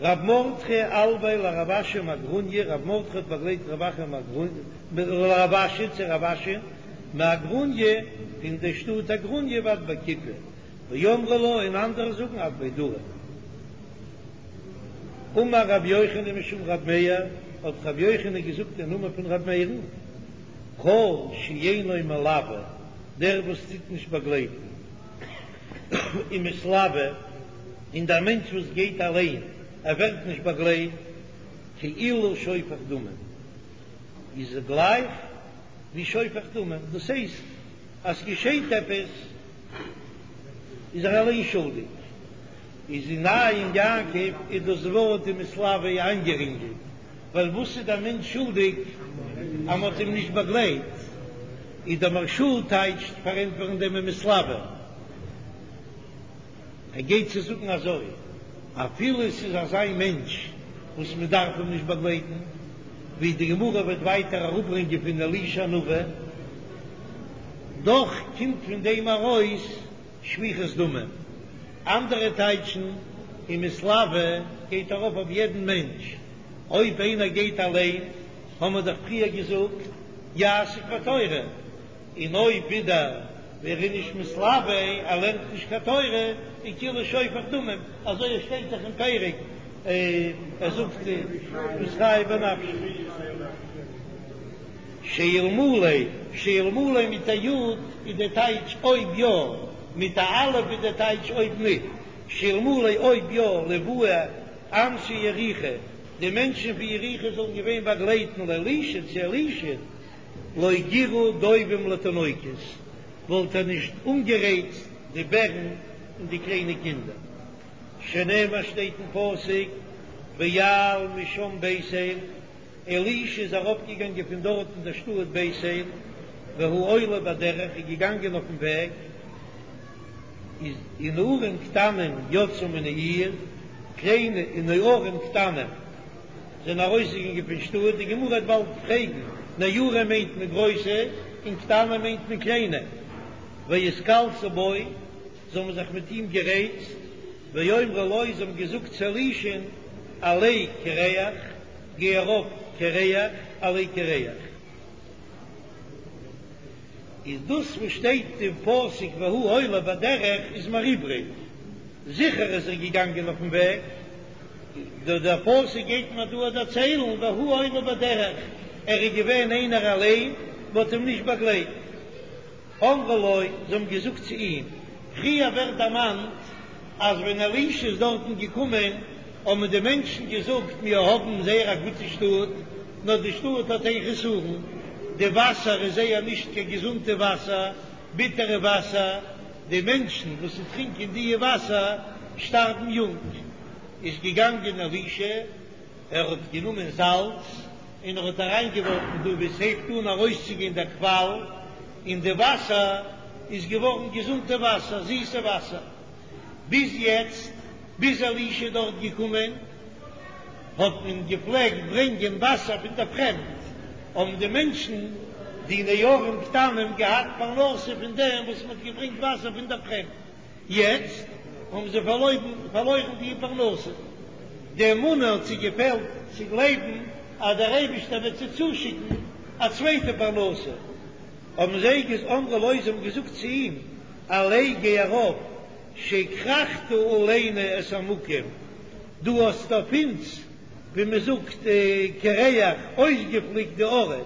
A: רב מרדכי אלויה לרב אשי מאגרוניא, רב מרדכי האט באגלייט רב אחא מאגרוניא, לרב אשי צו רב אשי מאגרוניא פון די שטאט אגרוניא ועד בי כיפי, ואמרי לה און אנדערע זאגן עד בי דרי. אמר רבי יוחנן משום רבי מאיר, האט רבי יוחנן געזאגט אין נאמען פון רבי מאיר'ן, כל שאינו מלווה, דער וואס טוט נישט באגלייטן, ומתלווה, און דער מענטש וואס גייט אליין, ער ווערט נישט באגלייט, כאילו שופך דמים, איז ער גלייך ווי שופך דמים, דאס הייסט אז ס'געשעט עפעס איז ער אליין שולדיג. איז אין עין יעקב איז דאס ווארט ומתלווה איינגערינגלט, ווייל וואס איז דער מענטש שולדיג אז מ'האט אים נישט באגלייט? איז דער מהרש"א טייטשט פארענטפערן דעם ומתלווה, ער גייט צו זאגן אזוי, אפילו עס איז אזא מענטש וואס מען דארף אים נישט באגלייטן, ווי די גמרא וועט ווייטער אראפברענגען פון אלישע הנביא, דאך קומט פון דעם ארויס שפיכות דמים. אנדערע טייטשן ומתלווה גייט ארויף אויף יעדן מענטש, אויב איינער גייט אליין, האמער דאך פריער געזאגט יעסוק בתורה, און אויב ווידער ווער איז נישט מתלווה, ער לערנט נישט קיין תורה, איז כאילו שופך דמים, אזוי עס שטייט דאך אין פרק, ער זאגט מתחייב בנפשו. שאלמלא, שאלמלא מיט א י' איז די טייטש אויב יא, מיט א א' איז די טייטש אויב ניט. שאלמלא אויב יא, לוהו אנשי יריחו, די מענטשן פון יריחו זאלן געווען באגלייטן לאלישע צו אלישע, לא גירו דובים לתינוקות, וואלט ער נישט אנגערייצט די בערן און די קליינע קינדער. שנאמר שטייט אין פסוק, ויעל משם בית אל. אלישע איז אראפגעגאנגען פון דארט אין דער שטאט בית אל, והוא עולה בדרך, איז געגאנגען אויפן וועג, איז ונערים קטנים יצאו מן העיר, קליינע ונערים קטנים זענען ארויסגעגאנגען פון שטאט, די גמרא וועט באלד פרעגן, נערים מיינט מען גרויסע, און קטנים מיינט מען קליינע, ויתקלסו בו, זיי האבן זיך מיט אים גערייצט, ויאמרו לו, זיי האבן געזאגט צו אלישע'ן, עלה קרח, גיי ארויף קרח, עלה קרח. איז דאס וואס שטייט אין פסוק והוא עולה בדרך איז מיר איבריג, זיכער איז ער געגאנגען אויפן וועג, דער פסוק גייט מיר דא דערציילן והוא עולה בדרך, ער איז געווען איינער אליין, מען האט אים נישט באגלייט. אמרו לו, זיי האבן געזאגט צו אים, פריער ווערט דערמאנט אז ווען אלישע איז דארטן געקומען האבן די מענטשן געזאגט, מיר האבן זייער א גוטע שטאט, נאר די שטאט האט איין חסרון, די וואסער איז זייער נישט קיין געזונטע וואסער, ביטערע וואסער, די מענטשן וואס טרינקען די וואסער שטארבן יונג. איז געגאנגען אלישע, ער האט גענומען זאלץ און ער האט אריינגעווארפן דא וואו עס הייבט אן ארויסצוגיין דער קוואל, און די וואסער איז געווארן געזונטע וואסער, זיסע וואסער. ביז יעצט, ביז אלישע איז דארט געקומען, האט מען געפלעגט ברענגען וואסער פון דער פרעמד, האבן די מענטשן, די נערים קטנים, געהאט פרנסה פון דעם וואס מען האט געברענגט וואסער פון דער פרעמד. יעצט האבן זיי פארלוירן די פרנסה, די אמונה האט זיי געפעלט צו גלייבן אז דער אייבערשטער וועט זיי צושיקן א צווייטע פרנסה, האבן זיי געז אמרו לו, זיי האבן געזאגט צו אים, עלה גיי ארויף. שהכרחת עלינו את המקום, דו האסט אויף אונז, ווי מען זאגט, קרח, אויסגעפליקט די ארט.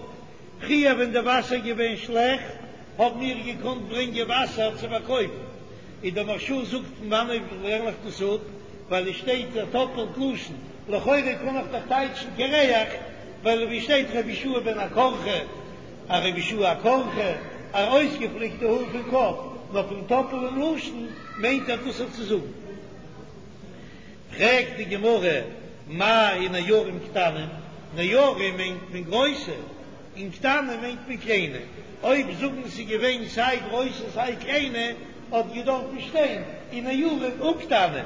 A: פריער ווען די וואסער איז געווען שלעכט, האבן מיר געקאנט ברענגען וואסער צו פארקויפן. און דער מהרש"א זאגט פון וואנעט לערן איך דאס אפ, ווייל עס שטייט א טאפעלט לשון, לכאורה קען איך דאך טייטשן קרח, ווייל ווי שטייט רבי יהושע בן הקרחה, א רבי יהושע הקרחה, א אויסגעפליקטע האר פון קאפ, נאר פון טאפעלען לשון מיינט ער דאס צו זאגן. פרעגט די גמרא, מאי ונערים קטנים, נערים מיינט מען גרויסע, און קטנים מיינט מען קליינע, אויב זאגן ס'איז געווען סיי גרויסע סיי קליינע, האט געדארפן שטיין ונערים וקטנים.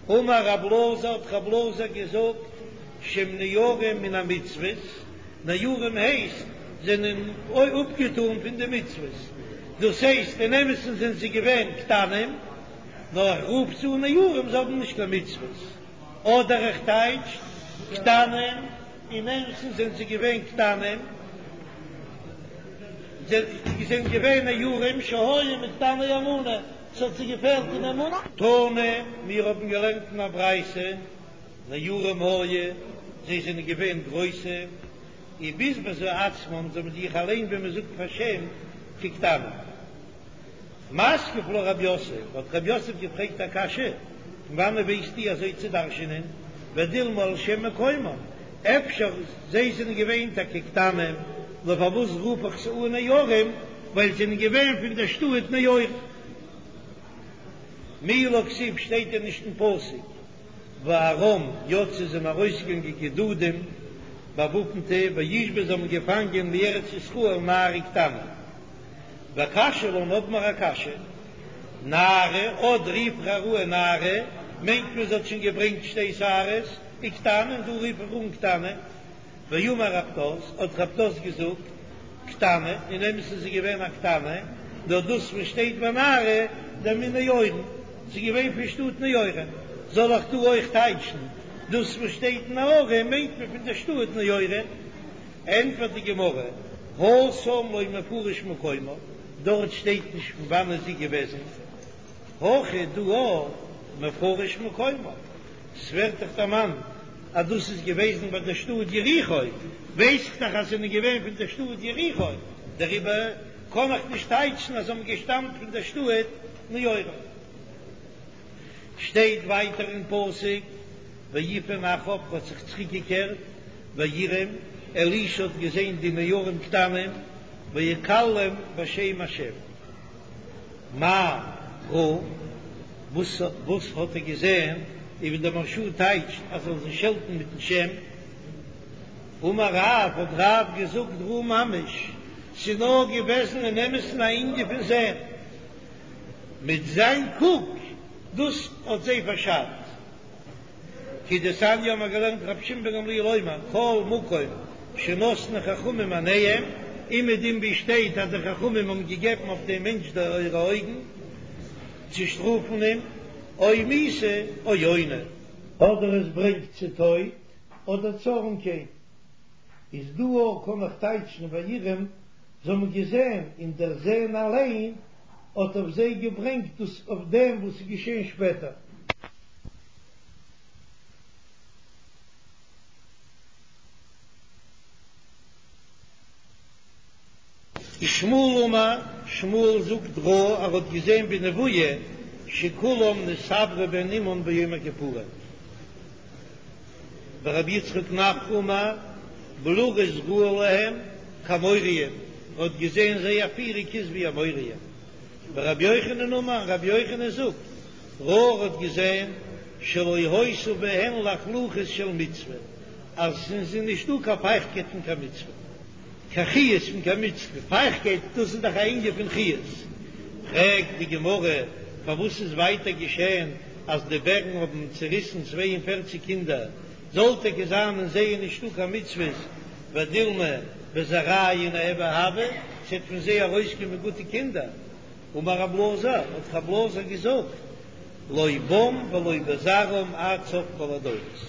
A: אמר רב אלעזר, האט רב אלעזר געזאגט, שהם ניעורים מן המצוות, נערים הייסט זענען אפגעטאן פון די מצוות, דאס הייסט אין אמת'ן זענען זיי געווען קטנים, נאר איך רוף זיי אן נערים, זיי האבן נישט קיין מצוות, אדער איך טייטש קטנים, אין אמת'ן זענען זיי געווען קטנים, זיי זענען געווען נערים שהיו מקטני אמונה. ס'האט זיי געפעלט אין אמונה. תנא, מיר האבן געלערנט אין א ברייתא, נערים היו, זיי זענען געווען גרויסע, ובזבזו עצמם, זיי האבן זיך אליין ווי מען זאגט פארשעמט, כקטנים. מתקיף לה רב יוסף, האט רב יוסף געפרעגט א קשיא, פון וואנעט ווייסטו אזוי צו דרש'ענען, ודילמא על שם מקומם, אפשר זיי זענען געווען טאקע קטנים, נאר פארוואס רוף איך זיי אן נערים, ווייל זיי זענען געווען פון דער שטאט נעורים. מי לא כתיב שטייט דען נישט אין פסוק וארם יצאו זענען ארויסגעגאנגען גדודים באוואפנטע וישבו זיי האבן געפאנגען מארץ ישראל נערה קטנה. וקשיא לן האבן מיר א קשיא, נערה אט רוף איך איר אן נערה מיינט מען זי האט שוין געברענגט שתי שערות, וקטנה און דא רוף איך אן קטנה. ואמר רב פדת, האט רב פדת געזאגט, קטנה, אין אמת'ן איז זי געווען א קטנה, נאר דאס וואס שטייט ונערה דמן נעורים, זי איז געווען פון שטאט נעורים, זאל איך דא אויך טייטשן, דאס וואס שטייט נערה מיינט מען פון דער שטאט נעורים? ענטפערט די גמרא, התם לא מפרש מקומה, דארט שטייט נישט פון וואנען זי איז געוועזן, הכא דא מפרש מקומה. ס'ווערט דאך דערמאנט אז דאס איז געוועזן ביי דער שטאט יריחו, ווייס איך דאך אז זענען געווען פון דער שטאט יריחו, דעריבער קען איך נישט טייטשן אז זיי האבן געשטאמט פון דער שטאט נעורים. שטייט ווייטער אין פסוק, ויפן אחריו האט זיך צוריקגעקערט, ויראם, אלישע האט געזען די נערים קטנים, ויקללם בשם השם. מה ראה? וואס וואס האט ער געזען? און ווי דער מהרש"א טייטשט אז ער זאל זיי שעלטן מיטן שם. אמר רב, האט רב געזאגט ראה ממש, ס'איז נאר געוועזן אין אמת'ן א ענין פון זען, מיט זיין קוק, דאס האט זיי פארשאדט. כדתניא האבן מיר געלערנט רבי שמעון בן גמליאל אומר כל מקום שנתנו חכמים עיניהם, אומעדום ווי שטייט אז די חכמים האבן געגעבן אויף דעם מענטש די אירע אויגן צו שטראפן אים, או מיתה או עוני. אדער עס ברענגט צו טויט אדער צו ארעמקייט, איז דא אויך קען איך טייטשן ויראם, זיי האבן געזען און דער זען אליין האט אויף זיי געברענגט דאס אויף דעם וואס איז געשען שפעטער. ושמואל אמר, שמואל זאגט ראה ער האט געזען בנבואה שכולם נתעברו בהן אמן ביום הכיפורים. ורבי יצחק נפחא אמר בלורית ראה להם כאמוריים, ער האט געזען זייער פירונג איז ווי אמוריים. ורבי יוחנן אמר, רבי יוחנן זאגט, ראה ער האט געזען שלא היתה בהן לחלוחית של מצוה, אז עס איז נישטא קיין פייכטקייט פון קיין מצוה, קיין חיות פון קיין מצוה, פייכטקייט דאס איז דאך א ענין פון חיות. פרעגט די גמרא, פארוואס איז ווייטער געשען אז די בערן האבן צעריסן 42 קינדער, זאל טאקע זיין אין זיי איז נישטא קיין מצוות, ודילמא בזרעייהו ניהוו הוו, ס'וועט פון זיי ארויסקומען גוטע קינדער. אמר רב אלעזר, האט רב אלעזר געזאגט, לא בם ולא בזרעם עד סוף כל הדורות.